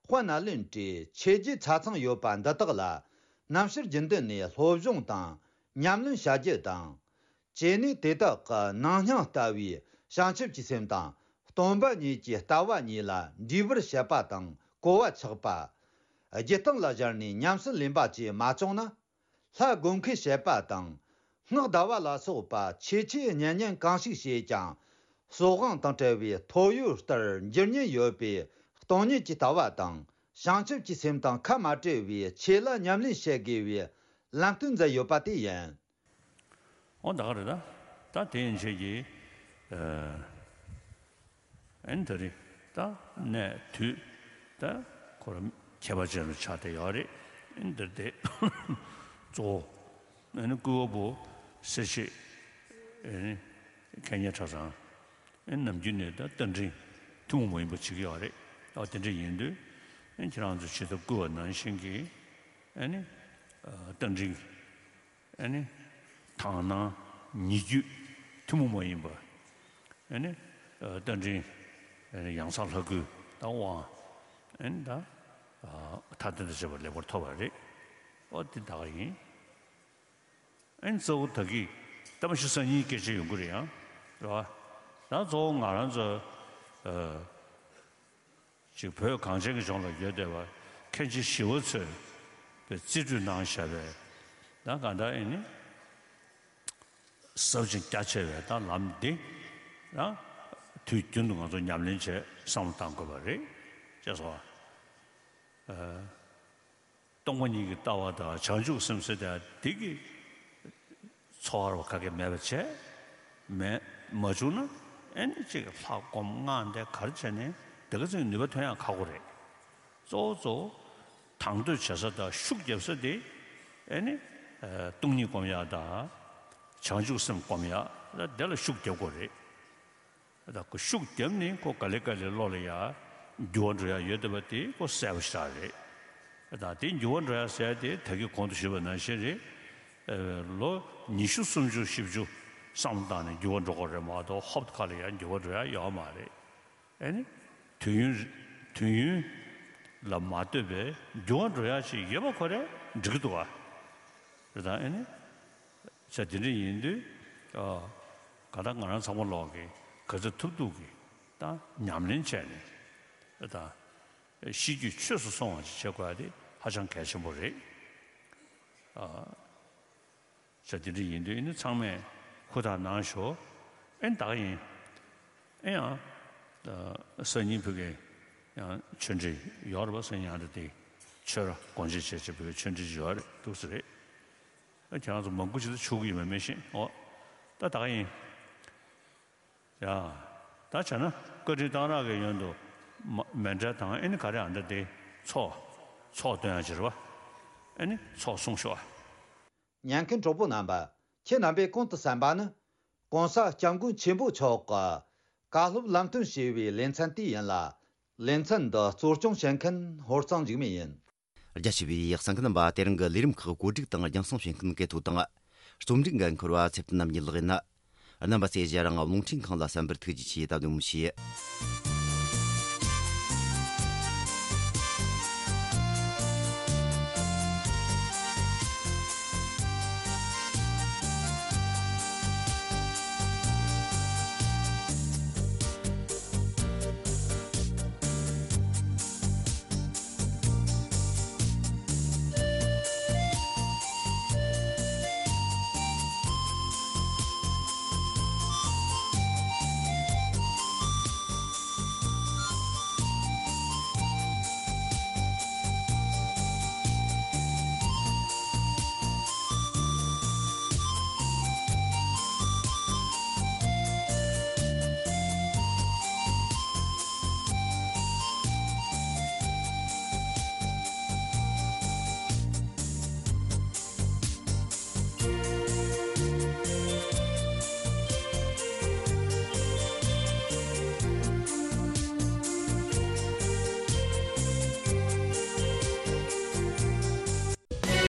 དཔལ་ནཱ་ལེནྡྲའི་ཆོས་བརྒྱུད་ཆ་ཚང་ཡོད་པ་འདི་དག་ལ། རྣམ་དཔྱོད་རྒྱུན་ལྡན་ནས་སློབ་སྦྱོང་དང་ཉམས་ལེན་བྱ་རྒྱུ་དང་། བྱས་ནས་དེ་དག་གི་ནང་སྙིང་ལྟ་བུའི་བྱང་ཆུབ་ཀྱི་སེམས་དང་སྟོང་པ་ཉིད་ཀྱི་ལྟ་བ་གཉིས་ལ་འདྲིས་པར་བྱེད་པ་དང་གོ་བ་ཆགས་པ། རྒྱུད་སྟེང་ལ་སྦྱར་ནས་ཉམས་སུ་ལེན་པ་བཅས་མ་བྱུང་ན། ལྷ་དགོངས་ཁས་བྱེད་པ་དང་། སྔགས་བཟླ་བ་ལ་སོགས་པ་ཆོས་ཆས་གཉེན་ཉན་གང་ཞིག་བྱས་ཀྱང་། སྲོག་དབང་དང་བྲལ་བའི་ཐོ་ཡོད་ལྟར་འགྱུར་ཉེན་ཡོད་པའི་སྟོང་ཉིད་ཀྱི་ལྟ་བ་དང་། བྱང་ཆུབ་ཀྱི་སེམས་དང་ཁ་མ་བྲལ་བའི་ཆོས་ལ་ཉམས་ལེན་བྱེད་དགོས་པའི་ལམ་སྟོན་མཛད་ཡོད་པ་དེ་ཡིན། འོ་ད་ག་རེད་ད། ད་དེ་ཡན་ཆད་ཀྱི་ཨ་ནི་ད་རེད་ད། གནས་དུས་ད་ཁོ་རང་ཁྱད་པར་ཅན་རུ་ཆགས་བསྡད་ཡོད་རེད། ཨ་ནི་འདིར་དེ་གཙོ་བོ་ཨ་ནི་སྐུ་བ་པོ་སེར་བྱེས་ཨ་ནི་མཁན་གཉེར་གྲྭ་ཚང་ཨ་ནི་ནམ་རྒྱུན་ནས་ད་རྟ་མགྲིན་ཐུན་མོང་མ་ཡིན་པ་བྱེད་ཀྱི་ཡོད་རེད། ཨ་དེ་འདྲ་ཡིན་དུས་ཨ་ནི་ཁྱེད་རང་ཚོ་ཇི་ལྟར་བསྐུལ་བ་ནང་བཞིན་གྱི་ཨ་ནི་རྟ་མགྲིན། ཨ་ནི། དག་སྣང་ཉེ་བརྒྱུད་ཐུན་མོང་མ་ཡིན་པ། ཨ་ནི། རྟ་མགྲིན། ཨ་ནི་ཡང་གསང་ལྷ་སྐུའི་དབང་། ཨ་ནི་ད། མཐའ་དོན་དང་བཅས་པ་ལེགས་པར་ཐོབ་པ་རེད། ཨོ་དེ་ད་ག་ཡིན། ཨ་ནི་གཙོ་བོ་ད་གི་ད་མ་གཞི་སང་ཉིན་སྐད་ཆ་ཡོང་གི་རེད་ཡང་། རེད་བ། ད་གཙོ་བོ་ང་རང་ཚོ། ཅིག་བོད་གངས་ཅན་གྱི་ལྗོངས་ལ་ཡོད་བསྡད་པ་མཁན་ཆེན་ཞི་བ་འཚོས་པའི་རྩིས་སྤྲོད་གནང་བཞག་པའི་ད་གང་ལྟར་ཨེ་ནི་ཟབ་ཅིང་རྒྱ་ཆེ་བའི་ད་ལམ་འདི་ད་དུས་རྒྱུན་དུ་ང་ཚོ་ཉམས་ལེན་བྱས་བསམ་བློ་བཏང་དགོས་པ་རེད་ཅེས་སོ། སྟོང་པ་ཉིད་ཀྱི་ལྟ་བ་དང་བྱང་ཆུབ་སེམས་ཟེར་དེ་འདི་གི་འཚོ་བ་རོ་ག་གེ་མེད་པ་བྱས། མེད་མ་བྱུང་ན་ཨེ་ནི་ཅིག་ལྷ་སྒོམ་སྔགས་འདི་གར་བྱས་ནས་འདི་ག་ཚོའི་ནུས་པ་ཐོན་ཡང་ཁག་པོ་རེད། གཙོ་བོ་གཙོ་བོ་དང་དོད་བྱེད་ས་དང་ཤུགས་རྒྱབ་ས་དེ་ཨེ་ནི་སྟོང་ཉིད་སྒོམ་ཡག་དང་བྱང་ཆུབ་སེམས་སྒོམ་ཡག་དེ་ལ་ཤུགས་རྒྱབ་དགོས་རེད། ད་ཁོ་ཤུགས་བརྒྱབ་ནས་ཁོ་ག་ལེ་ག་ལེ་བློ་ལ་ཡ་འགྱུར་བ་འགྲོ་ཡ་ཡོད་བསྡད་པ་དེ་ཁོ་གསལ་པོ་ཞེ་དྲག་རེད། ད་དེ་འགྱུར་བ་འགྲོ་ཡ་ཟེར་ཡ་དེ་ད་གིན་གོང་དུ་ཞུས་པ་ནང་བཞིན་རེད། ཨ་ལོ་ཉི་ཤུ་སུམ་ཅུ་བཞི་བཅུ་བསམ་བློ་བཏང་ནས་འགྱུར་བ་འགྲོ་དགོས་རེད་མ་གཏོགས་ཧོབ་ཁ་ལ་ཡ་འགྱུར་བ་འགྲོ་ཡ་ཡོད་མ་རེད། ཨ་ནི་དུས་ཡུན་དུས་ཡུན་ལ་མ་ལྟོས་པའི་འགྱུར་བ་འགྲོ་ཡ་ཞིག་ཡོད་པ་ཁོ་རེ་འགྲིག་གི་འདུག་བ། རེད་ད་ཨ་ནི། ས་དེ་འདྲ་ཡིན་དུས། ཨ། ག་ད་ང་རང་ཚང་མ་ལོག་གི་ག་ཚོད་ཐུབ་ཐུབ་ཀྱི་ད་ཉམས་ལེན་བྱས་ནས་ད་ཤེས་རྒྱུད་ཆོས་སུ་སོང་བ་ཅིག་བྱེད་དགོས་ཡ་དེ་ཧ་ཅང་གལ་ཆེན་པོ་རེད། ཨ། ས་དེ་འདྲ་ཡིན་དུས་ཨ་ནི་ཚང་མས་ཧུར་ཐག་གནང་ཤོག་ཨེ་ད་ག་ཡིན། ཨེ་ཡང་། ཨ། སང་ཉིན་ཕ་གི་ཡང་ཆོས་འབྲེལ་ཡོད་རེད་པ། སང་ཉིན་ཡང་ད་དེ་ཆོས་ར་དགོངས་བཞེས་བྱས་བྱས་ཕ་གི་ཆོས་འབྲེལ་ཡོད་རེད་འདུག་ས་རེད། ཨ་ཁྱེད་རང་ཚོ་མང་པོ་ཅིག་ད་ཆོག་གི་ཡོད་མེད་མི་ཤེས། ཨོ། ད་ད་ག་ཡིན། ཡ། ད་བྱས་ན་བཀའ་དྲིན་གཏང་རག་གི་ཡོན་དུ་མ་མཎྜལ་དང་ཨེ་ནི་ག་རེ་ཨ་འདྲ་དེ་ཚོགས་ཚོགས་སྟོན་ཡ་ཅིག་རེད་པ། ཨེ་ནི་ཚོགས་གསུང་ཤོག་ཨ། ཉན་མཁན་གྲོགས་པོ་རྣམ་པ། ཁྱེད་རྣམ་པས་གོང་དུ་གསན་པ་ནི། ྋགོང་ས་ྋསྐྱབས་མགོན་ཆེན་པོ་མཆོག་གི་བཀའ་སློབ་ལམ་སྟོན་ཞེས་པའི་ལེ་ཚན་དེ་ཡིན་ལ། ལེ་ཚན་འདི་གཙོ་སྐྱོང་བྱེད་མཁན་ཧོར་གཙང་འཇིགས་མེད་ཡིན། རྒྱ་ཆེ་བའི་གསན་མཁན་རྣམ་པ། དེ་རིང་གི་ལས་རིམ་ཁག་བཀོད་སྒྲིག་དང་རྒྱང་སྲིང་བྱེད་མཁན་སྐལ་ཐོ་དང་། རྩོམ་སྒྲིག་འགན་འཁུར་བ་ཚེ་བརྟན་རྣམ་གཉིས་ལགས་ཡིན། རྣམ་པ་ཚོས་རྒྱང་རིང་རླུང་འཕྲིན་ཁང་ལ་གསན་པར་ཐུགས་རྗེ་ཆེ། ད་དུང་མི་ཤེས།